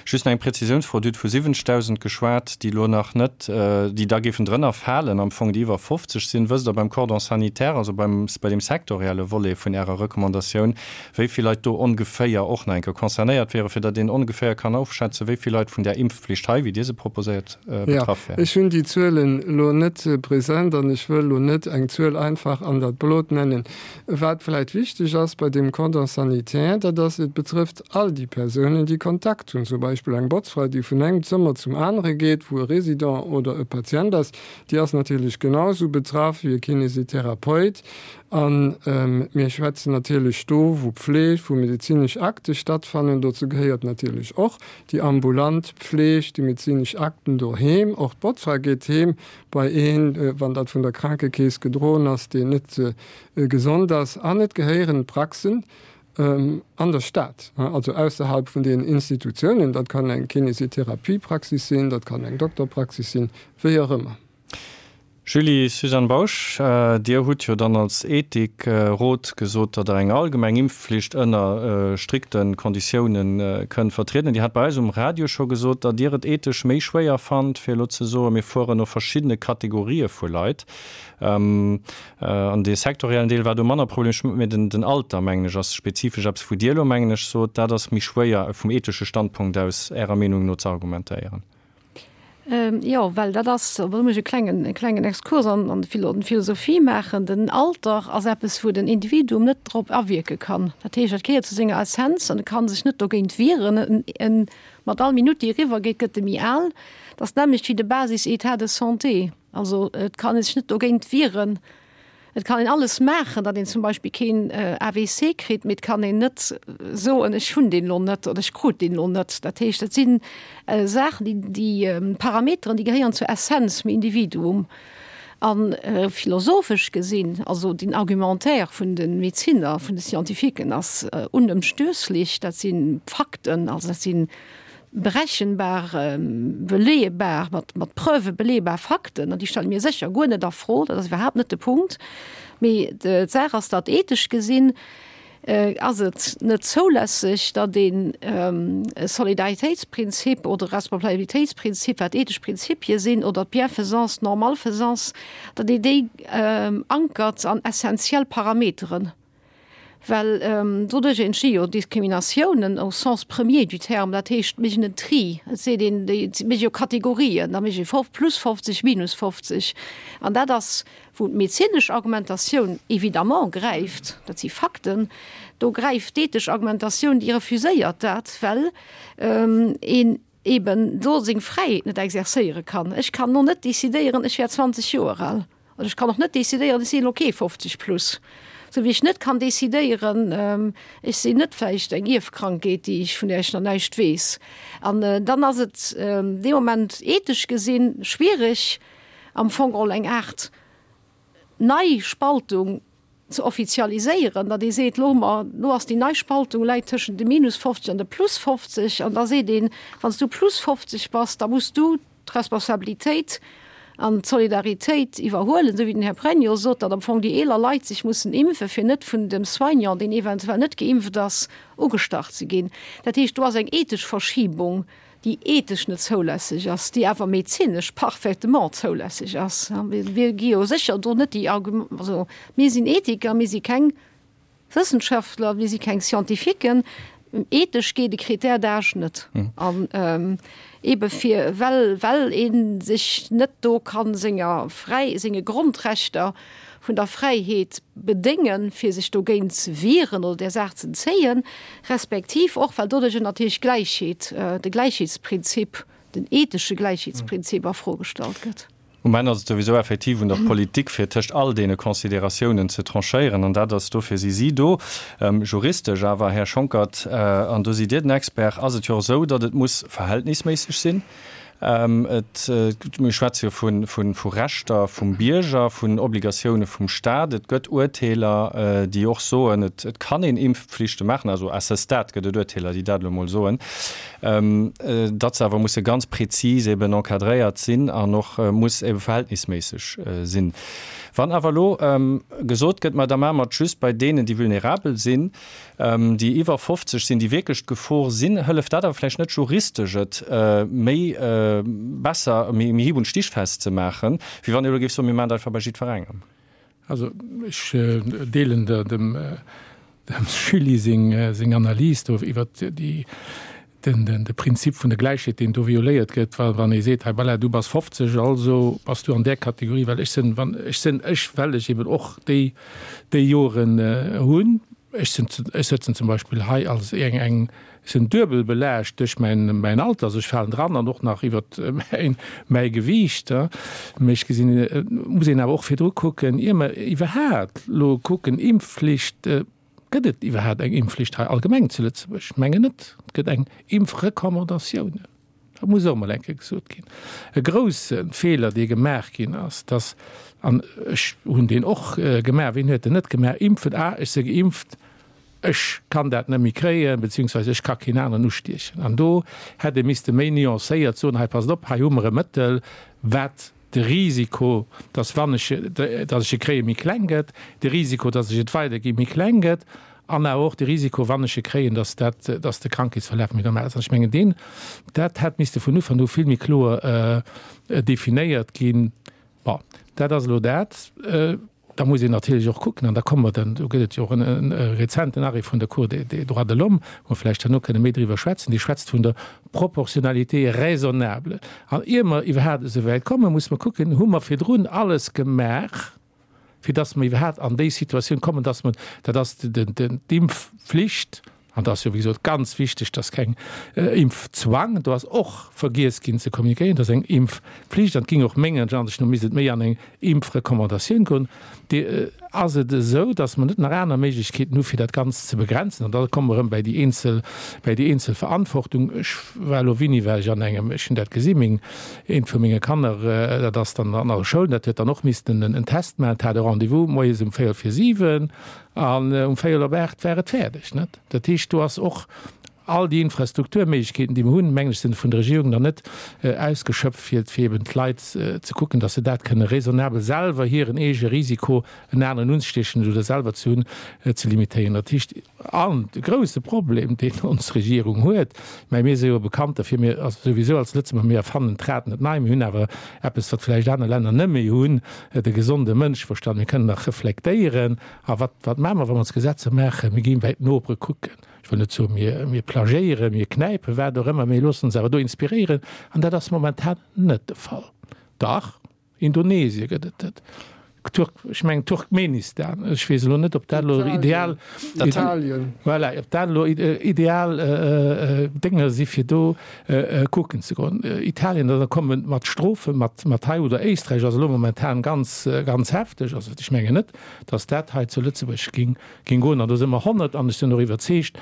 Just nach eng Präzisiounsfro, Dir hutt vu 70.000 geschwat, déi elo nach net, déi da géifen drënner falen am Fong, déi iwwer 50 sinn. Wësst Der beim Cordon sanitaire, also beim, bei deem sektorielle Volet vun Ärer Recommandatioun, wéi vill Leit do ongeféier och nach eng Kéier concernéiert wieren, fir datt een ongeféier kann ofschätzen, wéi vill Leit vun där Impfpflicht hei, wéi Dir se proposéiert, betraff wären? Ech hunn déi Zuelen elo net present an ech wëll elo net eng Zuel einfach an dat Blot nennen. Wat vläicht wichteg ass bei deem Cordon sanitaire, dat ass, et betrëfft all déi Persounen, déi Kontakt hunn, zum Beispill eng Botzfra, déi vun engem Zëmmer zum anere geet, wou e Résident oder e Patient ass, déi ass natierlech genau esou betraff wéi e Kinésithérapeut. A mir schwätzen natierlech do vu Pfleg, wou medezinesch Akte stattfannen. Dozou gehéiert natierlech och déi ambulant Pfleg, déi medezinesch Akten doheem. Och d'Botzfra geet heem bei een, wann dat vun der Krankekeess gedroen ass, deen net gesond ass. An et gehéieren d'Praxen an der Stad, also ausserhalb vun den Institutiounen. Dat kann eng Kinesitherapiepraxis sinn, dat kann eng Dokterpraxis sinn, wéi och ëmmer. Julie, Suzanne Bausch, Dir hutt jo dann als Ethikrot gesot, datt Der eng allgemeng Impfflicht ënner strikte Konditioune kënnt vertrieden. Dir hat bei eis um Radio scho gesot, datt Dir et ethesch méi schwéier fannt, fir elo ze soen, mir fueren no verschiddene Kategorië vu Leit. An dee sektoriellen Deel war do manner problemesch, mä den Alter, mengen ech, ass spezifesch eppes, wou Dir elo, mengen ech, sot, dat ass méi schwéier vum ethesche Standpunkt aus Ärer Meenung no ze argumentéieren. Jo, well dat ass, do muss ech e klengen, e klengen Exkurs an, an d'Philosophie maachen, den Alter ass eppes, wou den Individuum net drop awierke kann. Dat heescht, dat gehéiert zu senger Essenz an e ka sech net dogéint wieren. En, mat all Minutt, déi eriwwer geet, gëtt e méi al. Dat ass d'nämmlecht wéi de Basis-État de santé. Also et kann ee sech net dogéint wieren. Et kann een alles maachen, datt een zum Beispill keen AVC kritt, mee et kann een net soen, ech hunn deen elo net oder ech krut deen elo net. Dat heescht, dat si Saachen, déi, déi Parameteren, déi gehéieren zur Essenz vum Individuum. A philosophesch gesinn, also den Argumentaire vun de Medezinner, vun de Scientifiquen ass unëmstösslech, dat si Fakten, also dat si berechenbar, beleeëbar, mat, mat Preuve beleeëbar Fakten, an déi stelle mir sécher guer net a Fro, dat ass iwwerhaapt net de Punkt. Mee d'Saach ass, datt ethesch gesinn ass et net zoulässeg, datt een e Solidaritéitsprinzip oder e Responsabilitéitsprinzip, wat ethesch Prinzipie sinn, oder d'Bienfaisance, d'Normalfaisance, datt een déi ankert an essenziell Parameteren. Well doduerch entsti jo Diskriminatiounen au sens premier du terme, dat heescht, mir méchen en Tri, et seet een, déi mécht jo Kategorien, da mécht ee plus 50, minus 50. An dat ass, wou d'medezinesch Argumentatioun évidemment gräift, dat si Fakten, do gräift d'ethesch Argumentatioun, déi refuséiert dat, well een eben do seng Fräiheet net exercéiere kann. Ech kann elo net decidéieren, ech wär 20 Joer al. An ech kann och net decidéieren, ech sinn elo kee 50 plus. Sou wéi ech net kann decidéieren, ech sinn net vläicht eng Ierfkrankheet, déi ech, vun där ech nach näischt weess. An dann ass et dee Moment ethesch gesinn schwierig, am Fong geholl eng Aart nei Spaltung ze offizialiséieren, datt ee seet, elo hu mer, elo ass déi nei Spaltung, läit tëschent de minus 50 an de plus 50, an da seet een, wann s du plus 50 bass, da muss du d'Responsabilitéit an d'Solidaritéit iwwerhuelen, esou wéi den Här Pregno sot, datt am Fong déi eeler Leit sech mussen impfen, fir net vun dem Soignant, deen eventuell net geimpft ass, ugestach ze ginn. Dat heescht, do ass eng ethesch Verschibung, déi ethesch net zoulässeg ass, déi awer medezinesch parfaitement zoulässeg ass. Mir gi jo sécher do net déi Argum-, also mir sinn Ethiker, mir si keng Wëssenschaftler, mir si keng Scientifiquen. Ethesch geet e Critère d'âge net. An eebe fir, well, well ee sech net do ka senger Fräi-, senge Grondrechter vun der Fräiheet bedéngen, fir sech dogéint ze wieren oder där Saach ze entzéien, respektiv och, well doduerjer natierlech d'Gläichheet, de Gläichheetsprinzip, den ethesche Gläichheetsprinzip a Fro gestallt gëtt. Um Enn ass et souwisou effektiv un der Politik, fir tëscht all deene Consideratiounen ze tranchéieren, an dat ass, dofir si si do. Juristesch awer, Här Schonckert, an do sidd Dir den Expert, ass et jo och esou, datt et muss verhältnisméisseg sinn. Et, mir schwätze jo vu Rechter vum Bierger, vun Obligatioune vum Staat. Et gëtt Urteeler, déi och soen, et kann een Impfpflichte maachen. Also à ce stade gëtt et Urteeler, déi dat elo emol soen, datt se awer musse ganz prezis eben encadréiert sinn an och muss ebe verhältnisméisseg sinn. Wann awer elo gesot gëtt, ma da maache mer et just bei deenen, déi vulnerabel sinn, déi iwwer 50 sinn, déi wierklech d'Gefor sinn, hëlleft dat awer vläicht net juristesch, et méi besser, méi hieb und stichfest ze maachen, wéi wann ee elo géif soen, mir maachen dat einfach bei jiddwerengem. Also ech deelen dem Julie seng Analys do iwwert déi den de Prinzip vun der Gläichheet, deen do violéiert gëtt, wa wann ee seet, hei voilà, du bass 50, also bass du an där Kategorie, well ech sinn, wann ech sinn ech, well ech eben och déi déi Joren hunn, ech sinn, ech sëtzen zum Beispill hei als eng eng, ech sinn duebel belaascht duerch mäin mäin Alter, also ech falen dran an och nach iwwert mäin mäi Gewiicht, mee ech gesinn, et muss een awer och virdru kucken, ier mer iwwerhaapt elo kucken, Impfflicht, Gëtt et iwwerhaapt eng Impfflicht hei allgemeng zu Lëtzebuerg? Ech mengen net. Et gëtt eng Impfrecommandatioun. Dat muss och emol eng Kéier gesot ginn. E grousse Feeler, dee gemaach ginn ass, dass, an ech hunn deen och gemaach, wien huet en net gemaach, Impfen, ah, ech si geimpft, ech kann dat net méi kréien, beziehungsweise ech ka keen aneren ustiechen. An do hätt ee misste méi nuancéiert soen, hei passt op, hei hu mer e Mëttel, wat de Risiko, dass wann ech, dass ech e kréien, méi kleng gëtt, de Risiko, dass ech et weiderginn, méi kleng gëtt, an awer och de Risiko, wann ech e kréien, dass dat, dass de Krankheetsverlaf méi normal ass. An ech mengen, deen, dat hätt misste vun Ufank u vill méi kloer definéiert ginn. Bon, dat ass elo dat. da muss een natierlech och kucken, an da komme mer dann, do gëtt et jo och e rezenten Arrêt vun der Cour des droits de l'homme, wou mer vläicht herno kënne méi driwwer schwätzen, dee schwätzt vun der Proportionnalité raisonnable. An ier mer iwwerhaapt esou wäit kommen, muss mer kucken, hu mer virdrun alles gemaach, fir dass mer iwwerhaapt an déi Situatioun kommen, dass mer, dat ass d'Impfflicht, an dat ass jo wéi gesot ganz wichteg, dass keng Impfzwang, do ass och vergiess ginn ze kommunikéieren, dass eng Impfflicht, an et géing och menger Ansicht no misst et méi an eng Impfrecommandatioun goen, déi ass et esou, dass mer net nach aner Méiglechkeeten hu fir dat Ganzt ze begrenzen. An da komme mer erëm bäi déi eenzel, bäi déi eenzel Verantwortung. Ech war elo, wéini war ech an engem, ech hunn dat gesi meng, eent vu menge Kanner, dat ass dann an der Schoul, dat huet dann och missten en Test maachen, dat hat e Rendez-vous moies um véierel vir 7 an um véierel op 8 war et fäerdeg, net? Dat heescht, do ass och all déi Infrastrukturméiglechkeeten, déi mer hunn, mengen ech, sinn vun der Regierung nach net ausgeschöpft, fir fir eben d'Leit ze kucken, dass se dat kënne raisonnabel selwer hiren eege Risiko, en aneren unzestiechen oder selwer ze hunn, ze limitéieren. Dat heescht, an de grouse Problem, deen ons Regierung huet, mä mir si jo bekannt derfir, mir, also souwisou als Lëtzebuerger, mir erfannen d'Rad net nei, mir hunn awer eppes, wat vläicht aner Länner net méi hunn, de gesonde Mënscheverstand, mir kënnen nach reflektéieren. A wat, wat maache mer, wa mer ons Gesetzer maachen? Mir ginn bäi d'Nopere kucken. Ech wëll net soen, mir, mir plagiéieren, mir knäipen, wat och ëmmer, mee loossen ons awer do inspiréieren. An dat ass momentan net de Fall. Dach, Indonesie gëtt et dat, Turk, ech mengen Turkmenistan, ech weess elo net, ob dat elo ideal, Italien, voilà, ob dat elo ideal Dénger si fir do kucken ze goen. Italien, da komme mat Strofen, mat, mat hei oder Éisträich ass elo momentan ganz, ganz hefteg. Also ech mengen net, datt dat hei zu Lëtzebuerg ging, Ging goen an do si mer 100 an ech sinn och iwwerzeegt,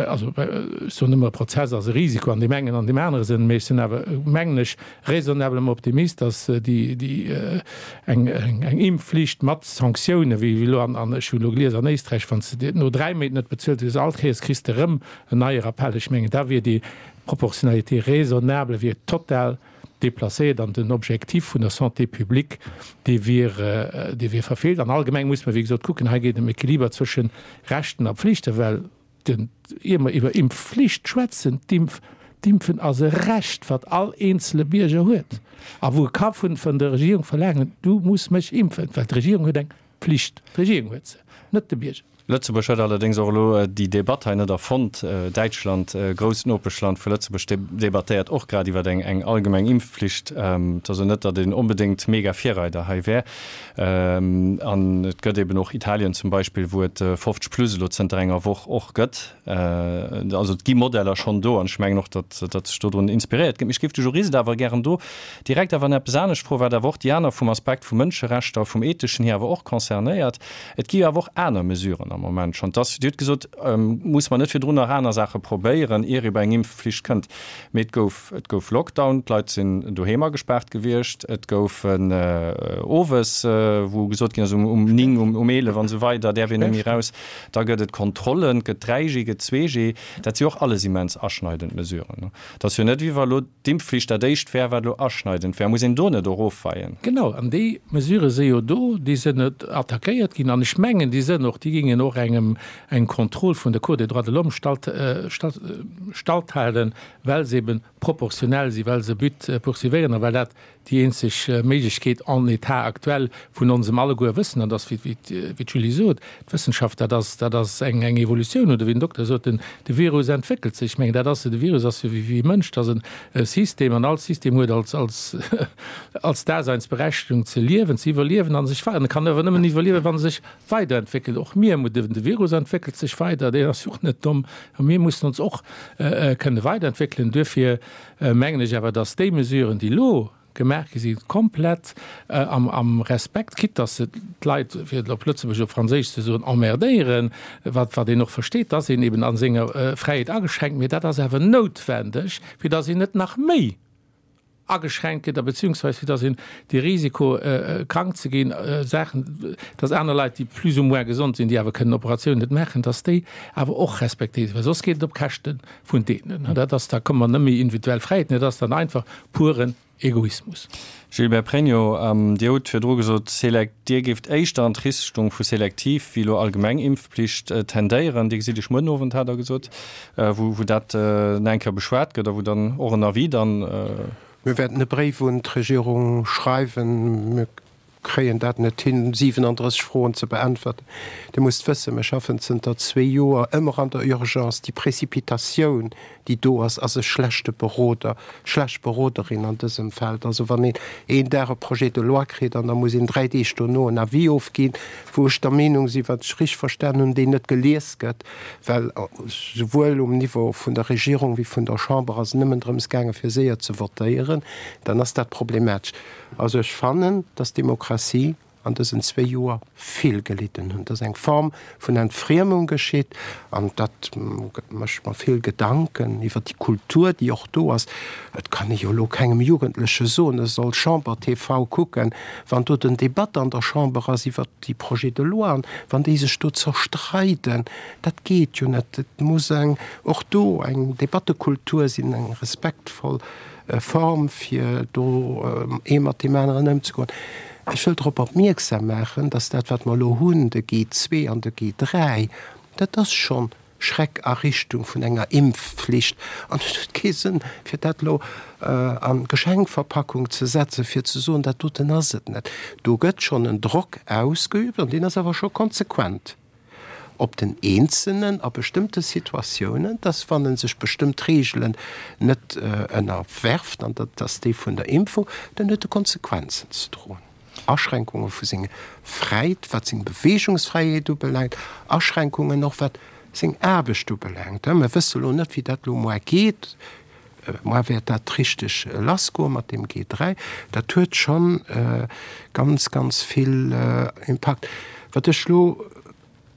also ech soen ëmmer, e Prozess ass e Risiko an deem engen an deem anere Sënn, mee ech sinn awer, mengen ech, raisonnablement optimist, datt déi, déi eng, eng Impfflicht mat Sanktiounen, wéi elo an, an ech hu elo gelies an Éisträich, wann s de no 3 Méint net bezuelt hues, all Kéiers kriss de erëm en neie Rappell. Ech mengen, da wier déi Proportionnalité raisonnable wier total déplacéiert an den Objectif vun der Santé publique, dee wier, dee wier verfeelt. An allgemeng muss mer, wéi gesot, kucken, hei geet et ëm Equiliber zwësche Rechten a Pflichten, well den, ier mer iwwer Impfflicht schwätzen, d'Impf, d'Impfen ass e Recht, wat all eenzele Bierger huet a wou e ka vun, vun der Regierung verlaangen, du muss mech impfen, well d'Regierung huet eng Pflicht. D'Regierung huet se, net de Bierger. Lëtzebuerg huet allerdéngs och elo déi Debatt hei net erfonnt. Däitschland, e grousst Nopeschland vu Lëtzebuerg, debattéiert och grad iwwer eng eng allgemeng Impfflicht. Et ass jo net, datt een onbedéngt mega Virreider hei wär. An et gëtt eben och Italien zum Beispill, wou et 50 plus elo zënter enger Woch och gëtt. Also et gi Modeller schonn do an ech mengen och, datt datt sech dodrun inspiréiert gëtt. Mee ech géif de Jurist awer gären do direkt awer nach eppes anescht froen, wat awer och déi aner vum Aspekt vu Mënscherechter, vum Etheschen hier awer och concernéiert. Et gi jo awer och aner Mesuren am Moment schonn. Dass, Dir hutt gesot, muss mer net virdrun nach aner Saache probéieren, ier ee bei eng Impfflicht kënnt. Mee et gouf, et gouf Lockdown, d'Leit sinn doheem agespaart gewiescht, et goufen owes, wou gesot ginn ass, um 9, um 11 an esou weider däerf een net méi eraus. Da gëtt et Kontrollen, et gëtt 3G, gëtt 2G. Dat si och alles immens aschneidend Mesuren. Et ass jo net, wéi wa elo d'Impfflicht dat éischt wär, wat elo aschneidend wär. Muss een do net och ofweien? Genau, an déi Mesurë si jo do, déi sinn net attackéiert ginn. An ech mengen, déi sinn och, déi gingen och engem, engem Contrôle vun der Cour des droits de l'homme stalt, stalt, stalthalen, well se eben proportionell sinn, well se e But poursuivéieren a well dat déi eenzeg Méiglechkeet en état actuel vun onsem alleguer Wëssen, an dass, wéi d'Julie sot, d'Wëssenschaft, dat ass, dat ass eng eng Evolutioun, oder wéi den Dokter sot, den de Virus entwéckelt sech. Ech mengen, dat ass, de Virus ass jo wéi e Mënsch, dat ass e System an all System huet als als als Daseinsberechtigung ze liewen, ze iwwerliewen a sech wei, an e kann awer nëmmen iwwerliewen, wann e sech weiderentwéckelt. Och mir, de Virus entwéckelt sech weider, deen ass jo och net domm, a mir mussen ons och kënne weiderentwéckelen. Duerfir mengen ech awer, dass déi Mesuren, déi elo gemaach gi sinn, komplett am Respekt, quitte dass se d'Leit, fir et op Lëtzebuergesch, op Franséisch ze soen, emmerdéieren, wat wat een och versteet, dass een eben a senger Fräiheet ageschränkt, mee dat ass awer noutwendeg, fir dass een net nach méi ageschränkt gëtt a beziehungsweis fir dass een de Risiko krank ze ginn, Saachen, dass aner Leit, déi plus ou moins gesond sinn, déi awer kënnen Operatiounen net maachen, dass déi awer och respektéiert sinn, well soss geet et op Käschte vun deenen. An dat ass, da komme mer net méi individuell Fräiheeten, dat ass dann einfach puren Egoismus. Gilbert Pregno, Dir hutt virdru gesot, Dir géift éischter an d'Richtung vu selektiv wéi elo allgemeng Impfpflicht tendéieren. Dir gesitt Iech muer den Owend, hat Der gesot, wou dat nach eng Kéier beschwat gëtt a wou dann och en Avis dann. Mir wäerten e Bréif un d'Regierung schreiwen. kréien dat net hin, 37 Froen ze beäntwerten. Dir musst wëssen, mir schaffen zënter zwee Joer ëmmer an der Urgence. Déi Précipitatioun, déi do ass, ass e schlechte Beroder, schlecht Beroderin an dësem Feld. Also wann een een Dag e Projet de loi kritt an da muss een dräi Deeg dono en Avis ofginn, wou ech der Meenung sinn, wat ech richteg verstan hunn, deen net gelies gëtt, well souwuel um Niveau vun der Regierung wéi vun der Chamber ass et nëmmen drëms gaange fir séier ze votéieren, dann ass dat problematesch. Also ech fannen, dass d'Demokratie an dësen zwéi Joer vill gelidden hunn, dass eng Form vun Entfriemung geschitt an dat mécht mer vill Gedanken iwwer déi Kultur, déi och do ass. Et kann ee jo elo kengem Jugendleche soen, e soll Chamber TV kucken, wann do den Debatt an der Chamber ass iwwer déi Projets de loi an wann déi sech do zerstreiden. Dat geet jo net. Et muss eng och do eng Debattekultur sinn, eng respektvoll Form, fir do ee mat deem aneren ëmzegoen. Ech wëll drop opmierksam maachen, dass dat, wat mer elo hunn, de G2 an de G3, dat ass schonn Schreck a Richtung vun enger Impfflicht. An et huet kee Sënn, fir dat elo a Geschenkverpackung ze setzen, fir ze soen, dat doten ass et net. Do gëtt schonn en Drock ausgeübt, an deen ass awer scho konsequent op den Eenzelnen a bestëmmte Situatiounen, dass, wann e sech bestëmmt Reegelen net ënnerwerft, an dat ass déi vun der Impfung, dann huet e Konsequenzen ze droen. Aschränkunge vu seng Fräit, wat seng Beweegungsfräiheet ubelaangt, Aschränkungen och wat seng Aarbecht ubelaangt. Mir wësse lo net, wéi dat lo muar geet. Muar wäert dat richteg lassgoe mat deem G3. Dat huet scho ganz, ganz vill Impakt. Wat ech lo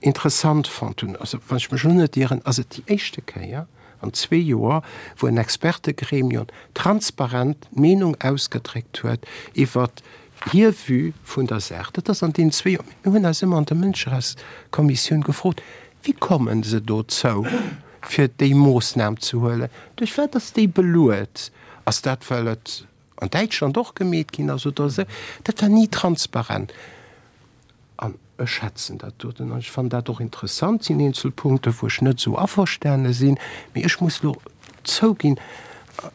interessant fonnt hunn, also wann ech mech elo net ieren, ass et déi éischte Kéier an zwee Joer, wou en Expertegremium transparent d'Meenung ausgedréckt huet iwwert hir Vue vun der Saach. Dat ass an deenen zwee Joer, mir hunn eis ëmmer an der Mënscherechtskommissioun gefrot, Wéi komme se dozou, fir déi Moossnam ze huelen? Duerch wat ass déi beluet? Ass dat, well et an Däitschland och gemeet ginn ass oder esou? Dat war ni transparent. An ech schätzen dat doten an ech fannen dat och interessant. Et sinn eenzel Punkte wou ech net esou averstane sinn, mee ech muss elo zouginn,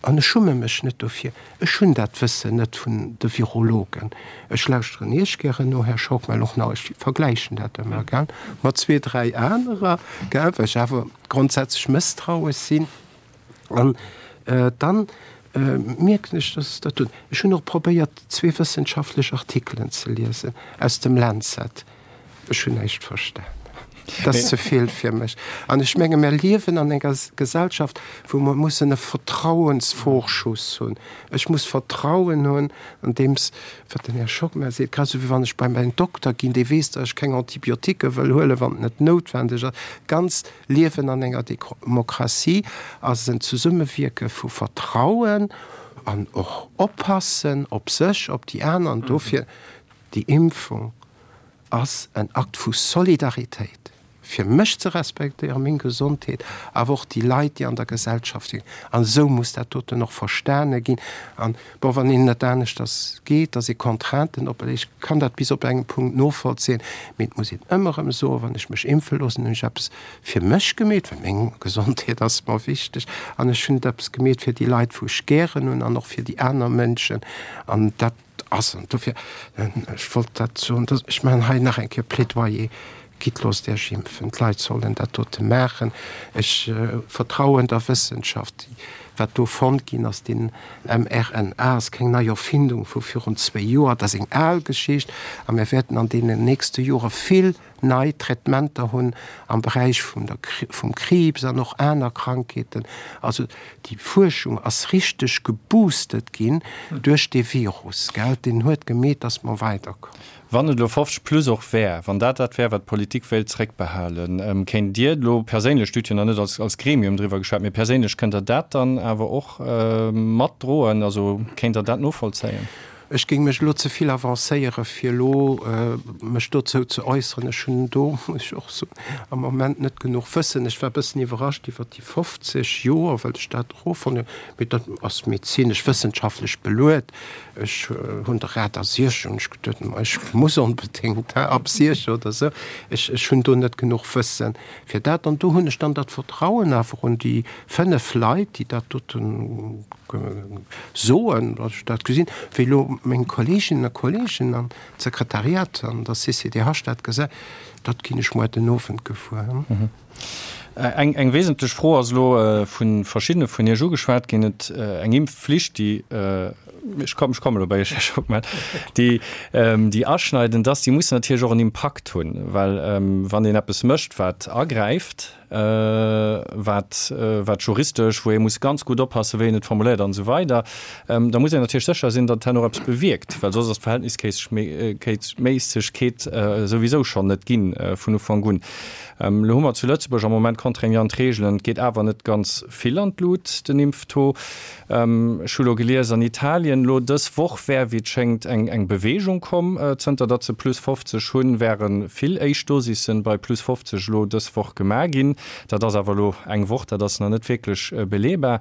an ech schumme mech net dofir, ech hunn dat Wëssen net vun de Virologen. Ech lauschteren Iech gären no, Här Schockmel, och nach, ech vergläichen dat ëmmer, gell, mat zwee, dräi anerer, gell, well ech awer grondsätzlech mësstrauesch sinn. An dann mierken ech, dass dat do, ech hunn och probéiert, zwee wëssenschaftlech Artikelen ze liesen aus dem Lancet, ech hunn näischt verstan. Dat ass ze vill fir mech. An ech menge mir liewen an enger Gesellschaft, wou mer mussen e Vertrauensvorschuss hunn. Ech muss Vertrauen hunn an deems, wat den Här Schockmel seet, grad esou wéi wann ech bei mäin Dokter ginn, dee weess, datt ech keng Antibiotiquë wëll huelen, wann et net noutwendeg ass. Ganz Liewen an enger Demokratie ass en Zesummewierke vu Vertrauen an och Oppassen op sech, op déi aner. An dofir, déi Impfung ass en Akt vu Solidaritéit, fir mech ze respektéieren, meng Gesondheet, awer och déi Leit, déi an der Gesellschaft sinn. An esou muss dat doten och verstane ginn. An, bon, wann een net aneschters geet, dass ee Contrainten operléiert, ech kann dat bis op engem Punkt novollzéien, mee et muss een ëmmer erëm soen, wann ech mech impfe loossen, hunn ech eppes fir mech gemeet, well meng Gesondheet ass mer wichteg, an ech hunn eppes gemeet fir déi Leit, wou ech gären hunn, an och fir déi aner Mënschen. An dat ass, an dofir, ech wollt dat soen, ech maachen hei nach eng Kéier Plädoyer, Gitt, loosst Iech impfen. D'Leit sollen dat dote maachen. Ech vertrauen der Wëssenschaft. Wat do fonnt ginn ass, deen mRNA ass keng nei Erfindung vu virun zwéi Joer, dat ass eng al Geschicht. A mir wäerten an deenen nächste Jore vill nei Traitementer hunn am Beräich vum der, vum Kriibs an och aner Krankheeten. Also déi Fuerschung ass richteg geboostet ginn duerch dee Virus, gell. Deen huet gemeet, dass mer weiderkommen. Wann et elo 50 plus och wär, wann dat dat wär, wat d'Politik wéilt zréckbehalen, kéint Dir elo perséinlech, Dir hutt jo nach net als, als Gremium driwwer geschwat, mee perséinlech, kënnt Der dat dann awer och matdroen, also kéint Der dat novollzéien? Ech géing mech elo ze vill avancéieren, fir elo mech dozou ze äusseren. Ech hunn do, muss ech och soen, am Moment net genuch Wëssen. Ech war e bëssen iwwerrascht iwwert déi 50 Joer, well ech dat erofonnt hunn. Mee dat ass medezinesch, wëssenschaftlech beluet. Ech hunn de Rat a Siech, hunn ech geduet, ma ech muss onbedéngt ab Siech oder esou. Ech, ech hunn do net genuch Wëssen fir dat. An do hunn ech dann dat Vertrauen awer un déi 5 Leit, déi dat doten soen, datt ech dat gesinn, wéi elo. meng Kolleeginnen a Kolleegen an d'Sekretariat an der CCDH dat gesäit, dat ginn ech muer den Owend gewuer. Eng eng wesentlech Fro ass elo vu verschiddene vun Iech ugeschwat ginn, et eng Impfflicht, déi, ech kommen, ech kommen elo bei Iech, Här Schockmel, déi déi aschneidend ass, déi muss natierlech och en Impakt hunn, well wann een eppes mécht, wat agräift, wat wat juristesch, wou ee muss ganz gutt oppassen, wéi een et formuléiert an esou weider, da muss een natierlech sécher sinn, datt herno och eppes bewierkt, well soss ass d'Verhältnisméissegkeet souwisou schonn net ginn vun Ufank un. Elo hu mer zu Lëtzebuerg am Moment contraignant Reegelen. Et geet awer net ganz vill an d'Lut, den Impftaux. Ech hu lo gelies, an Italien elo dës Woch wär, wéi et schéngt, eng eng Beweegung komm. Zënter datt se plus 50 hunn, wäre vill éischt Dosissen bei plus 50 elo dës Woch gemaach ginn. Dat ass awer elo eng Woch, dat ass nach net wierklech beleebar.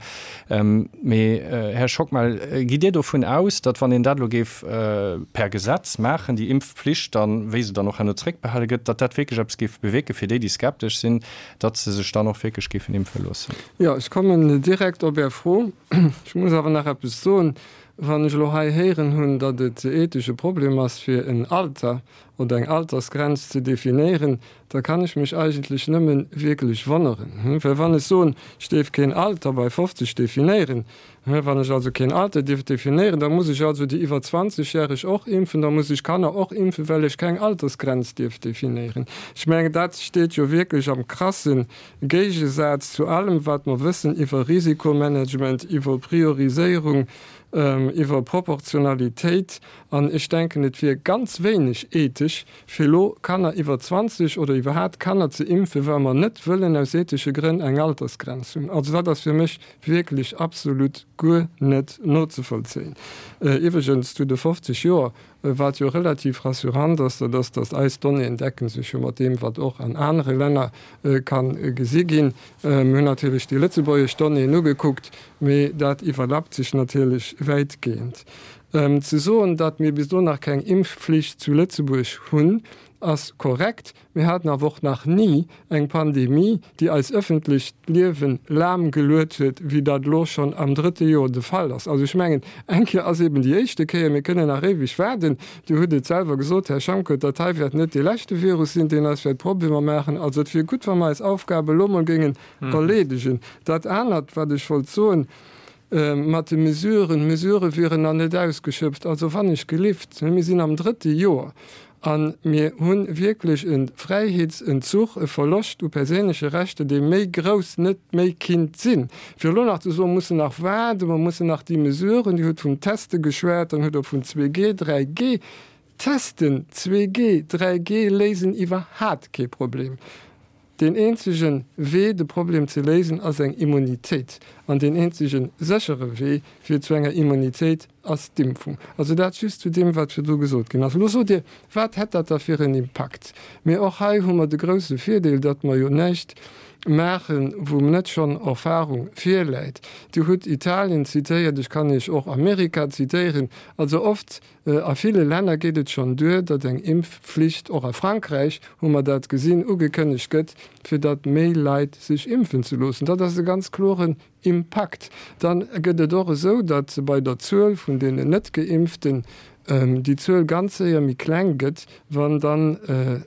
Mee, Här Schockmel, gitt Dir dovun aus, datt wann een dat elo géif per Gesetz maachen, déi Impfpflicht dann, wéi se dann och herno zréckbehale gëtt, datt dat wierklech eppes géif bewierken fir déi, déi skeptesch sinn, datt se sech dann och wierklech géifen impfe loossen? Jo, ech kommen direkt op Är Fro. Ech muss awer nach eppes soen. Wann ech elo hei héieren hunn, datt et ethesch e Problem ass, fir en Alter oder eng Altersgrenz ze definéieren, da kann ech mech eigentlech nëmme wierklech wonneren. Well wann ech soen, ech dierf keen Alter bei 50 definéieren, wann ech also keen Alter dierf definéieren, da muss ech also déi iwwer 20 järeg och impfen, da muss ech Kanner och impfen, well ech keng Altersgrenz dierf definéieren. Ech mengen, dat steet jo wierklech am krasse Géigesaz zu allem, wat mer wëssen iwwer Risikomanagement, iwwer Prioriséierung, iwwer Proportionalitéit. An ech denken, et wier ganz wéineg ethesch, fir elo Kanner iwwer 20 oder iwwerhaat Kanner ze impfen, well mer net wëllen aus ethesche Grënn eng Altersgrenz hunn. Also dat ass fir mech wierklech absolut guer net nozevollzéien. Iwwregens zu de 50 Joer, wat jo relativ rassurant ass, dat ass, datt eis Donnéeën decken sech jo mat deem, wat och an anere Länner ka gesi ginn. Mir hunn natierlech déi lëtzebuergesch Donnéeën ugekuckt, mee dat iwwerlappt sech natierlech wäitgehend. Ze soen, datt mir bis elo nach keng Impfflicht zu Lëtzebuerg hunn, ass korrekt. Mir haten awer och nach ni eng Pandemie, déi eis ëffentlecht Liewe lahm geluet huet, wéi dat elo schonn am drëtte Joer de Fall ass. Also ech mengen, eng Kéier ass eben déi éischte Kéier. Mir kënnen nach éiweg waarden. Dir hutt et selwer gesot, Här Schanke, dat hei wäert net dee leschte Virus sinn, deen eis wäert Problemer maachen. Also et wier gutt, wa mer eis Aufgab elo mol géingen erleedegen. Dat anert, wat ech wollt soen, Mat de Mesuren, d'Mesurë wieren nach net ausgeschöpft. Also wann ech gelift, mir sinn am drëtte Joer a mir hu wierklech e Fräiheetsenzuch, e Verloscht u perséinleche Rechter, dee méi grouss net méi kinnt sinn. Fir elo nach ze soen, mer mussen nach waarden, mer mussen nach déi Mesuren, Dir hutt vum Teste geschwat, dann hutt Der vun 2G, 3G, Testen, 2G, 3G léisen iwwerhaat kee Problem. Deen eenzege Wee, de Problem ze léisen, ass eng Immunitéit. An deen eenzege séchere Wee fir zu enger Immunitéit ass d'Impfung. Also dat just zu deem, wat virdru gesot ginn ass. Elo sot Dir, Wat hätt dat da fir en Impakt? Mee och hei hu mer de grouse Virdeel, datt mer jo näischt maachen, wou net schonn Erfahrung virläit. Dir hutt Italien zitéiert, ech kann Iech och Amerika zitéieren. Also oft A ville Länner geet et schonn duer, datt eng Impfflicht, och a Frankräich hu mer dat gesinn, ugekënnegt gëtt, fir datt méi Leit sech impfen ze loossen. Dat ass e ganz kloren Impakt. Dann gëtt et och esou, datt bei der Zuel vun deenen Net-Geimpften déi Zuel ganz séier méi kleng gëtt, wann dann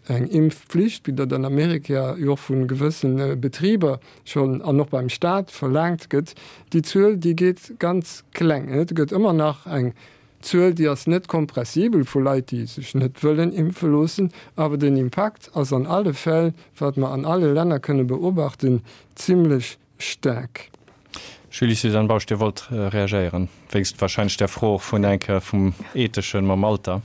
eng Impfflicht, wéi dat an Amerika jo och vu gewësse Betriber schonn an och beim Staat verlaangt gëtt, déi Zuel déi geet ganz kleng. Et gëtt ëmmer nach eng D'Zuel, déi ass net kompressibel vu Leit, déi sech net wëllen impfe loossen, awer den Impakt ass an alle Fäll, wat mer an alle Länner kënne beobachten, zimlech staark. Julie-Suzanne Bausch, Dir wollt reagéieren, wéinst wahrscheinlech där Fro och vun eng Kéier vum Etheschen mam Alter.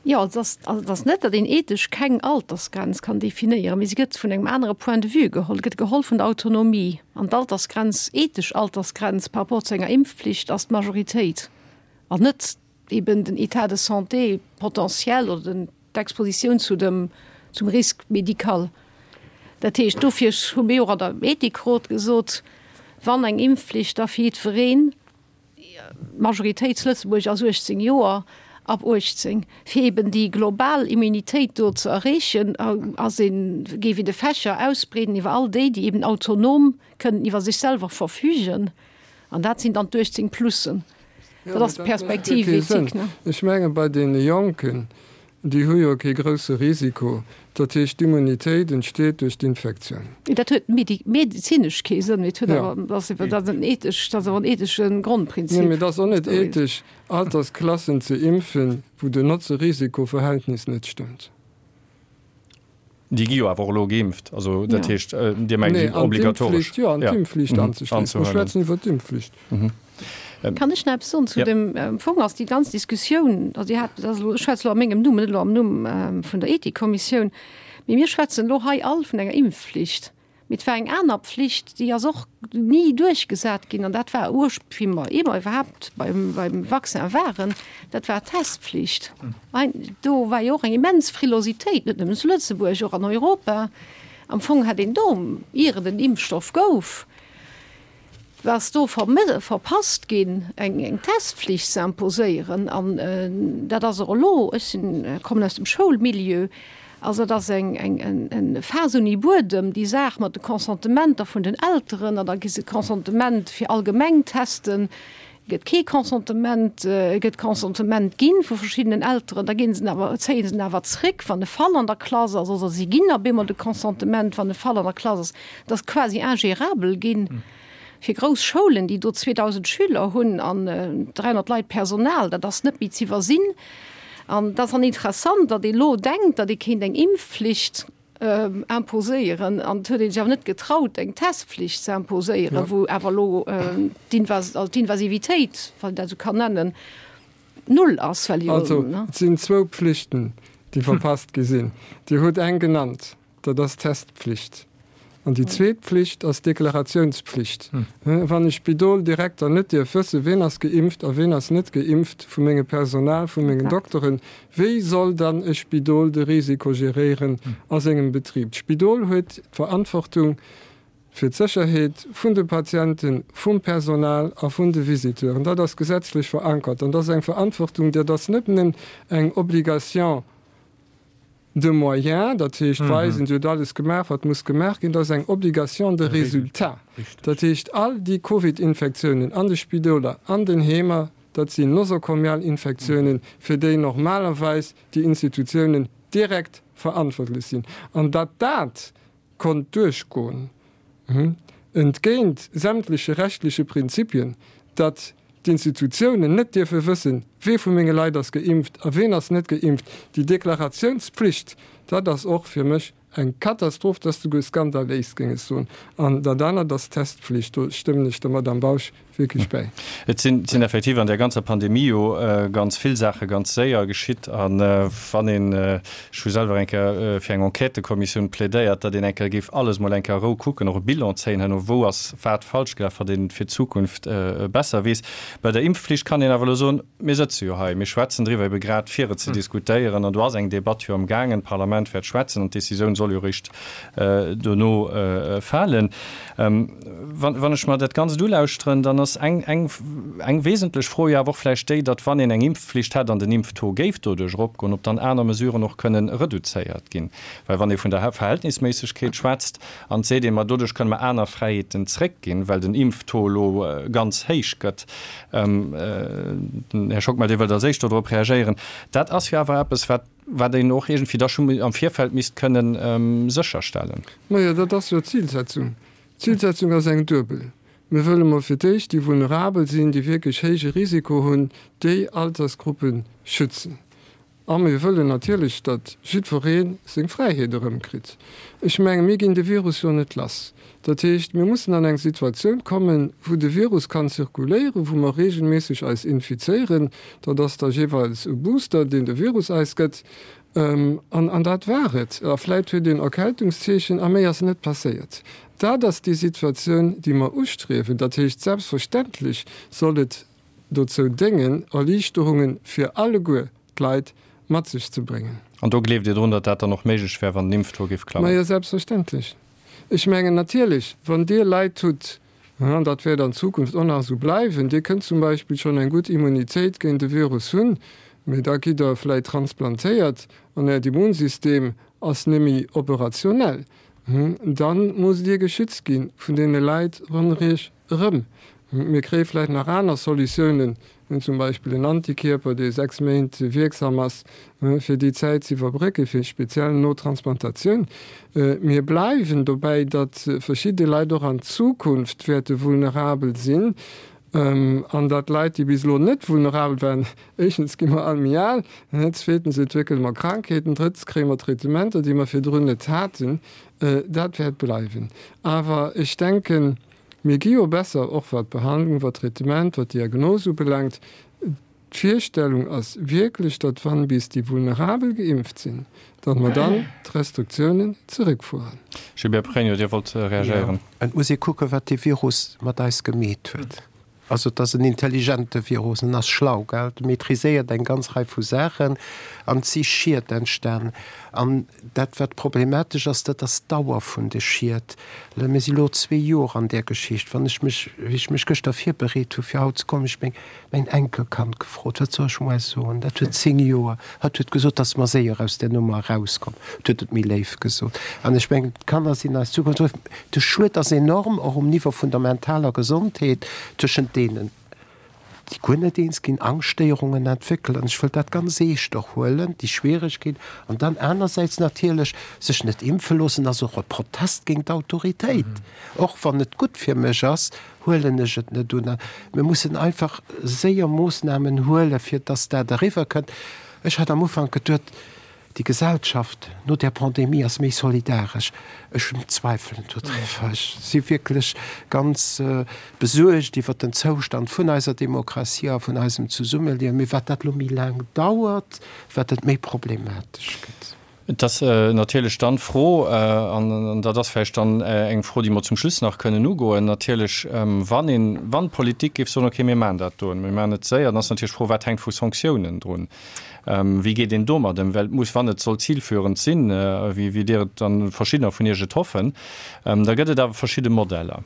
Jo, et ass, also et ass net, datt een ethesch keng Altersgrenz kann definéieren, mee se gëtt vun engem anere Point de vue geholl. Et gëtt geholl vun der Autonomie. An d'Altersgrenz, ethesch Altersgrenz par rapport zu enger Impfpflicht ass d'Majoritéit an net eben den État de santé potentiel oder den, d'Expositioun zu dem, zum Risque médical. Dat heescht, dofir hu mir och an der Ethikrot gesot, wann eng Impfpflicht, da fir jiddwereen. D'Majoritéit zu Lëtzebuerg ass 18 Joer, ab 18. Fir eben déi global Immunitéit do ze erreechen, ass een, géif een de Fächer ausbreeden iwwer all déi, déi eben autonom kënnen iwwer sech selwer verfügen. An dat sinn dann d'18 Plussen. Dat ass d'Perspektiv éthique, ne? Ech menge bei deene Jonken, déi hu jo kee grousse Risiko. Dat heescht, d'Immunitéit entsteet duerch d'Infektioun. Dat huet medezinesch kee Sënn, mee et huet awer, dat ass dat ass en ethesch, dat ass awer en ethesche Grondprinzip. Nee, mee et ass och net ethesch, Altersklassen ze impfen, wou den Notze-Risiko-Verhältnis net stëmmt. Déi gi jo awer och elo geimpft. Also dat heescht, Dir mengt déi obligatoresch. Jo, an d'Impfflicht anzeschléissen. Mir schwätzen iwwer d'Impfflicht. Kann ech nach eppes soen zu dem, am Fong ass déi ganz Diskussioun, also Dir hat, dat ass elo, ech schwätze elo a mengem Numm, net elo am Numm vun der Ethikkommissioun, mee mir schwätzen elo hei all vun enger Impfflicht. Mee et war eng aner Pflicht, déi ass och ni duerchgesat ginn, an dat war ursp-, wéi mer eemol iwwerhaapt beim, beim Vaccin waren, dat war d'Testpflicht. Do war jo och eng immens Frilositéit, net nëmmen zu Lëtzebuerg, och an Europa. Am Fong hätt een do, ier et en Impfstoff gouf, ass do verpasst ginn, eng Testpflicht ze imposéieren. An dat ass och elo, ech sinn, kommen aus dem Schoulmilieu, also dat ass eng Faass ouni Buedem, déi Saach mat de Consentementer vun den Elteren. An da gi se Consentement fir allgemeng Testen, gëtt kee Consentement, gëtt Consentement ginn vu verschiddenen Elteren, da ginn se en awer, zéie se en awer zréck, wann e Fall an der Klass ass, oder si ginn op eemol de Consentement, wann e Fall an der Klass ass. Dat ass quasi ingérabel ginn fir grouss Schoulen, déi do 2.000 Schüler hunn an 300 Leit Personal. Dat ass net méi z'iwwersinn. An et ass dann interessant, datt ee lo denkt, datt ee kéint eng Impfflicht imposéieren an et huet ee sech awer net getraut, eng Testpflicht ze imposéieren, wou awer elo d'Invasivitéit, wann een dat esou kann nennen, null ass, well jo. Also, et sinn zwou Pflichten, déi verpasst gi sinn. Dir hutt eng genannt, dat ass d'Testpflicht. An déi zweet Pflicht ass d'Deklarationspflicht. Wann e Spidoldirekter net dierf wëssen, ween ass geimpft a ween ass net geimpft vu mengem Personal, vu mengen Dokteren, wéi soll dann e Spidol de Risiko geréieren a sengem Betrib? D'Spidol huet d'Verantwortung fir d'Sécherheet vun de Patienten, vum Personal a vun de Visiteuren. Dat ass gesetzlech verankert an dat ass eng Verantwortung, dat ass net nëmmen eng Obligation de moyens, dat heescht weisen, Dir hutt alles gemaach, wat muss gemaach ginn, dat ass eng Obligation de résultat. Dat heescht, all déi Covid-Infektiounen an de Spidoler, an den Heemer, dat sinn nosokomial Infektiounen, fir déi normalerweis déi Institutiounen direkt verantwortlech sinn. An datt dat konnt duerchgoen, entgéint sämtleche rechtliche Prinzipien, datt d'Institutiounen net dierfe wëssen, wee vu menge Leit ass geimpft a ween ass net geimpft. Déi Deklaratiounspflicht, dat ass och fir mech eng Katastroph, dat ass souguer skandaléis, géing ech soen. An dat anert ass d'Testpflicht, do stëmmen ech der Madame Bausch wierklech bäi. Et sinn effektiv an där ganzer Pandemie jo ganz vill Saache ganz séier geschitt. A wann een, ech hu selwer eng Kéier fir eng Enquêtëkommissioun plädéiert, datt een eng Kéier géif alles mol eng Kéier a Rou kucken, och e Bilan zéien herno, wou ass wat falsch gelaf, wat een fir d'Zukunft besser weess. Bei der Impfflicht kann een awer elo soen, mir sëtze jo hei, mir schwätzen driwwer ebe grad fir et ze diskutéieren an do ass eng Debatt jo am gaangen, d'Parlament wäert schwätzen an d'Decisioun soll jo eréischt dono falen. Wann ech mer dat Ganzt ulauschteren, dann ass eng, eng, eng wesentlech Fro jo awer och vläicht déi, datt wann een eng Impfflicht hätt an den Impftaux géif doduerch eropgoen, ob dann aner Mesuren och kënnen reduzéiert ginn. Well wann ee vun der Verhältnisméissegkeet schwätzt an et seet een, ma doduerch kënne mer aner Fräiheeten zréckginn, well den Impftaux elo ganz héich gëtt, den Här Schockmel, Dir wëllt als Éischt dodrop reagéieren, dat ass jo awer eppes, wat, wat een och iergendwéi da scho am Virfeld misst kënnen sécherstellen. Majo, dat ass jo d'Zilsetzung. D'Zilsetzung ass eng duebel. Mir wëlle mol fir d'éischt déi vulnerabel sinn, déi wierklech héije Risiko hunn, déi Altersgruppe schützen. A mir wëllen natierlech, datt jiddweree seng Fräiheet erëmkritt. Ech menge mir ginn de Virus jo net lass. Dat heescht, mir mussen an eng Situatioun kommen, wou de Virus kann zirkuléieren, wou mer regelméisseg eis infizéieren. Dat ass da jeeweils e Booster, deen de Virus eis gëtt. An, an dat war et. A vläit huet een Erkältungszeechen a méi ass net passéiert. Dat ass déi Situatioun, déi mer ustriewen. Dat heescht, selbstverständlech soll et dozou déngen, Erliichterunge fir alleguer d'Leit mat sech ze bréngen. An do gleeft Dir drun, datt dat dann och méiglech wär, wann den Impftaux géif klammen? Majo, selbstverständlech. Ech mengen natierlech, wann Dir Leit hutt, an dat wäert an Zukunft och nach esou bleiwen, Dir kënnt zum Beispill schonn eng gutt Immunitéit géint de Virus hunn, mee da gitt Der vläit transplantéiert an Äert Immunsystem ass némmi operationell, da musst Dir geschützt gi vun deene Leit ronderëm Iech erëm. Mir kréie vläit nach aner Solutiounen. Zum Beispill en Antikierper, dee 6 Méint wierksam ass, fir déi Zäit ze iwwerbrécken, fir speziell no Transplantatioun. Mir bleiwen dobäi, datt verschidde Leit och an Zukunft wäerte vulnerabel sinn an datt Leit, déi bis elo net vulnerabel waren, éischtens gi mer all méi al, zweetens entwéckele mer Krankheeten, drëttens kréie mer Traitementer, déi mer virdrun net haten. Dat wäert bleiwen. Awer ech denken, mir gi jo besser, och wat d'Behandlung, wat d'Traitement, wat d'Diagnos ubelaangt. D'Virstellung ass wierklech, datt wann bis déi Vulnerabel geimpft sinn, datt mer dann d'Restriktiounen zeréckfueren. Gilbert Pregno, Dir wollt reagéieren. Jo, et muss ee kucken, wat dee Virus mat eis gemeet huet. Also et ass en intelligente Virus, en ass schlau, gell, e maîtriséiert eng ganz Rei vu Saachen an et si Schied entstan. An dat wat problematesch ass, dat ass d'Dauer vun de Schied. Mir si lo zwee Joer an där Geschicht. Wann ech mech, wéi ech mech gëschter virbereet hu fir haut ze kommen, ech meng mäin Enkelkand gefrot, wat soll ech muer soen? Dat huet 10 Joer. Hatt huet gesot, dass mer séier aus där Nummer erauskommen. Et huet et méi léif gesot. An ech mengen, d'Kanner sinn eis Zukunft. De Schued ass enorm, och um Niveau vun der mentaler Gesondheet, tëschent deenen, déi guer net eens ginn, Angschtstéierungen entwéckelen. Ech wëll dat ganz eescht och huelen, déi Schwieregkeet. An dann anersäits natierlech, sech net impfe loossen ass och e Protest géint d'Autoritéit. Och wann et gutt fir mech ass, huelen ech et net un. Mir mussen einfach séier Moossnamen huelen, fir dass dat eriwwer kënnt. Ech hat am Ufank geduet, déi Gesellschaft no där Pandemie ass méi solidaresch. Ech zweifelen dodriwwer. Ech si wierklech ganz besuergt iwwert den Zoustand vun eiser Demokratie a vun eisem Zesummeliewen. Mee wat dat elo méi laang dauert, wat et méi problematesch gëtt. Et ass natierlech dann d'Fro, an dat ass vläicht dann eng Fro, déi mer zum Schluss nach kënnen ugoen, natierlech, wann een, wann d'Politik géif soen, okay, mir maachen dat do, mir maachen et séier, dann ass natierlech d'Fro, wat hänkt vu Sanktiounen drun? Wéi geet een domat ëm? Well et muss, wann et soll zilführend sinn, wéi Dir et an verschiddener vun Iech et hoffen, da gëtt et awer verschidde Modeller.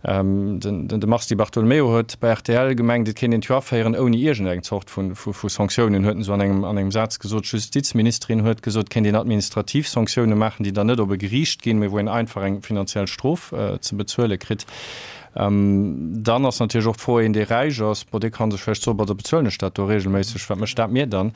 De Mars Di Bartolomeo huet bei rtl gemengt, et kéint een d'Joer aféieren ouni iergendeng Zort vu Sanktiounen, huet en esou an engem Saz gesot. D'Justizministerin huet gesot, et kéint een administrativ Sanktioune maachen, déi dann net op e Geriicht ginn, mee wou een einfach eng finanziell Strof ze bezuele kritt. Dann ass natierlech och d'Fro, een dee räich ass, bon, dee ka sech vläicht soen, bon, da bezuelen ech dat do reegelméisseg, wat mécht dat mir dann?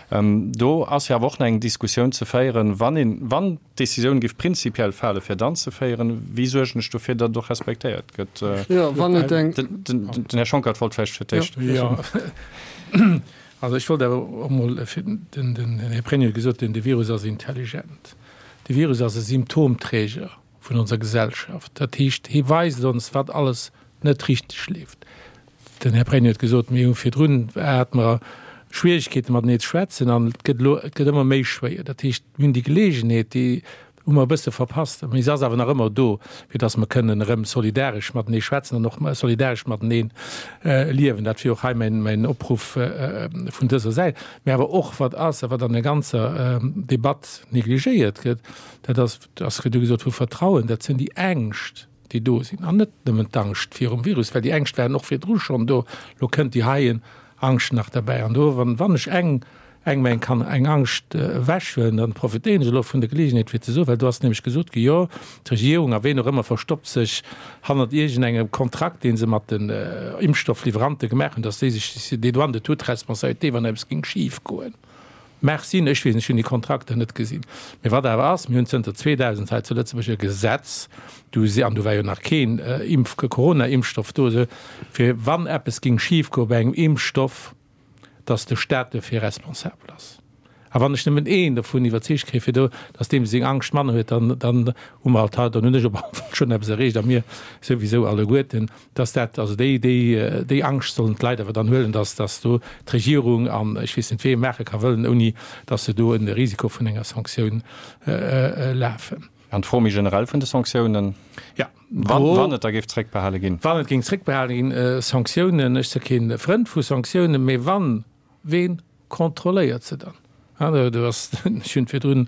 Do ass jo awer och nach eng Diskussioun ze féieren, wann een, wann d'Decisioun géif prinzipiell fale fir et anzeféieren, wéi suergen ech dofir, datt et och respektéiert gëtt? Jo, wann et eng. Den Här Schonckert wollt vläicht fir d'éischt. Jo, also ech wollt awer och emol, den Här Pregno huet gesot, de Virus ass intelligent. De Virus ass e Symptomträger. vun onser Gesellschaft. Dat heescht, hie weist ons, wat alles net richteg leeft. Den Här Pregno huet gesot, mir hu virdrun hate mer Schwierigkeete matenee ze schwätzen an et gëtt elo, et gëtt ëmmer méi schwéier. Dat heescht, mir hunn déi Geleegenheet, déi hu mer e bësse verpasst, mee se ass awer nach ëmmer do, fir datt mer kënnen erëm solidaresch matenee schwätzen an och solidaresch matenee liewen. Dat wier och hei mäin, mäin Opruff vun dëser Säit. Mee awer och, wat ass a wat an der ganzer Debatt negligéiert gëtt, dat ass, Et ass virdu gesot vu Vertrauen, dat sinn déi Ängscht, déi do sinn, an net nëmmen d'Angscht virum Virus, well déi Ängscht waren och virdru schonn do. Elo kënnt déi heien Angscht nach derbäi. An do, wann, wann ech eng, engem eng kann eng Angscht ewechhuelen, dann profitéieren ech elo vun der Geleegenheet fir ze soen, well do ass nämlech gesot gi, jo, d'Regierung a ween och ëmmer verstoppt sech hannert iergendengem Kontrakt, dee se mat den Impfstoffliwwerante gemaach hunn, dass déi sech dédouane de toute responsabilité, wann eppes géing schifgoen. Mag sinn, ech weess net, ech hunn déi Kontrakter net gesinn. Mee wat awer ass, mir hunn zënter 2000 hei zu Lëtzebuerg e Gesetz, du si, an du war jo nach keen Impf-, Corona-Impfstoff do, esou, fir wann eppes géing schifgoe bei engem Impfstoff, datt de Staat dofir responsabel ass. A wann ech nëmmen een dovun iwwerzeegt kréie fir do, datt deem seng Angscht manner huet, dann, dann hu mer alt hei, dann hunn ech op alle Fall schonn eppes erreecht a mir souwisou alleguerten. Dass dat, also déi, déi, déi Angscht sollen d'Leit awer dann huelen, dass, dass do d'Regierung an ech weess net wee maache ka wëllen, ouni dass se do en Risiko vun enger Sanktioun lafen. An d'Fro méi generell vun de Sanktiounen, Ja, wann, wann et da géif zréckbehale ginn? Wann et géing zréckbehale ginn, Sanktiounen, ech si kee Frënd vu Sanktiounen, mee wann, ween kontrolléiert se dann? Do ass, ech hunn et virdrun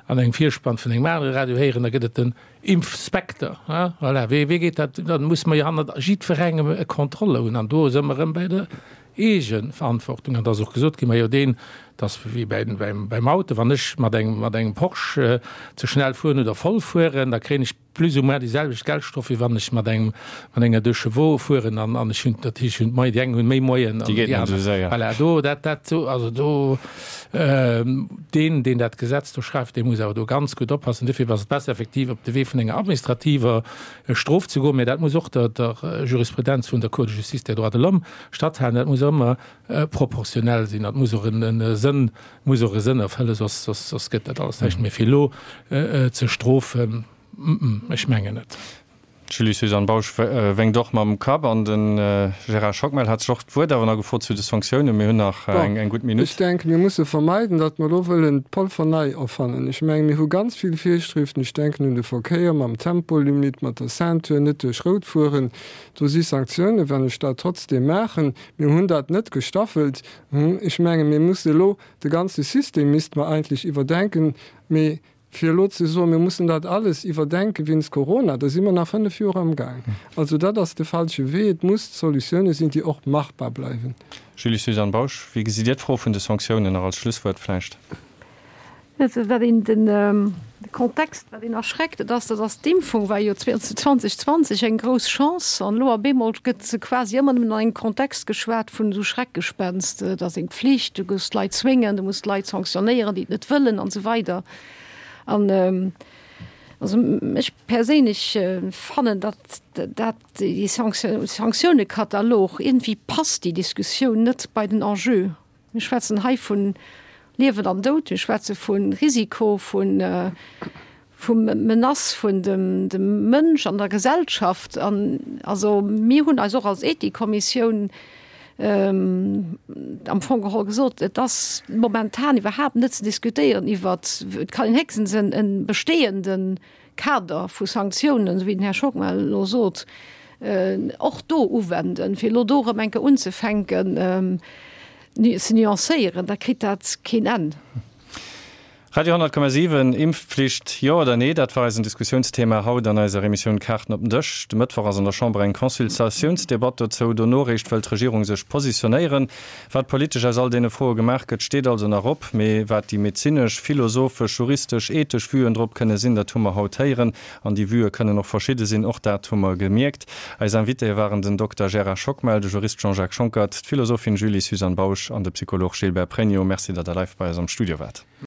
an engem Virspann vun engem anere Radio héieren, da gëtt et den Impfspekter. Voilà, wéi geet dat? Da musse mer jo hannert jiddwerengem e Contrôle hunn. An do si mer erëm bei der Eegeverantwortung. An da ass och gesot ginn, majo deen, Et ass wéi beim Auto, wann ech mat engem Porsche ze schnell fueren oder voll fueren, da kréien ech plus ou moins déi selwecht Geldstrof, wéi wann ech mat engem, mat enger Deux Chevaux fueren an, an ech hunn, dat heescht, ech hunn d'Moyen, déi eng hunn méi Moyen an déi aner. Voilà, do, dat, dat, also do, deen, deen dat Gesetz do schreift, dee muss awer do ganz gutt oppassen. Dofir ass et besser effektiv op de Wee vun enger administrativer Strof ze goen, mä dat muss och der, der Jurisprudenz vun der Cour de justice des droits de l'homme statthalen. Dat muss ëmmer proportionell sinn, dat muss och en Sënn, muss och e Sënn erfëllen, soss, soss, soss gëtt dat alles näischt. Mee fir elo ze strofen, ech mengen net. D'Julie-Suzanne Bausch wénkt och mam Kapp an de Gérard Schockmel hat sech och d'Wuert awer nach gefrot zu de Sanktiounen. Mir hunn nach eng gutt Minutt. Ech denken, mir musse vermeiden, datt mer elo wëllen d'Polver nei erfannen. Ech mengen, mir hu ganz vill Virschriften, ech denken un de Verkéier mam Tempolimit, mat der Ceinture, net duerch Rout fueren. Do si Sanktiounen, wann ech dat trotzdeem maachen. Mir hunn dat net gestaffelt. Ech mengen, mir musse elo de ganze System misste mer eigentlech iwwerdenken. Mee fir elo ze soen, mir mussen dat alles iwwerdenke wéinst Corona, da si mer nach fënnf Joer amgaang. Also dat ass de falsche Wee. Et muss Solutioune sinn, déi och machbar bleiwen. Julie-Suzanne Bausch, wéi gesitt Dir d'Fro vun de Sanktiounen nach als Schlusswuert vläicht? Wat een den Kontext, wat een erschreckt, dat ass, dat ass d'Impfung war jo 2020 eng grouss Chance an elo op eemol gëtt se quasi ëmmer nëmmen an engem Kontext geschwat vun esou Schreckgespenst, et ass eng Pflicht, du muss d'Leit zwéngen, du muss d'Leit sanktionéieren, déi et net wëllen an esou weider. An also ech perséinlech fannen, datt dat déi Sanktiounekatalog, iergendwéi passt déi Diskussioun net bei den Enjeu. Mir schwätzen hei vu Liewen an Doud, mir schwätze vu Risiko, vu vu Menace vun dem dem Mënsch an der Gesellschaft. An also mir hunn eis och als Ethikkommissioun am Fong geholl gesot, et ass momentan iwwerhaapt net ze diskutéieren iwwert, et kann een héchstens en e bestehenden Kader vu Sanktiounen, esou wéi den Här Schockmel elo sot, och do uwenden. Fir elo do erëm eng Kéier unzefänken ze nuancéieren, da kritt dat keen Enn. Radio 10,7, Impfpflicht, jo oder nee? Dat war eisen Diskussiounsthema haut an eiser Emissioun Kaarten op den Dësch. De Mëttwoch ass an der Chamber eng Consultatiounsdebatt dozou. Dono réischt wëll d'Regierung sech positionéieren. Wat politesch aus all deene Froe gemaach gëtt, steet also nach op. Mee wat déi medezinesch, philosophesch, juristesch, ethesch Vuen drop kënne sinn, dat hu mer haut héieren. An déi Vuë kënnen och verschidde sinn, och dat hu mer gemierkt. Eis Invitéë waren den Dokter Gérard Schockmel, de Jurist Jean-Jacques Schonckert, d'Philosophin Julie-Suzanne Bausch an de Psycholog Gilbert Pregno. Merci, datt Der live bei eis am Studio waart.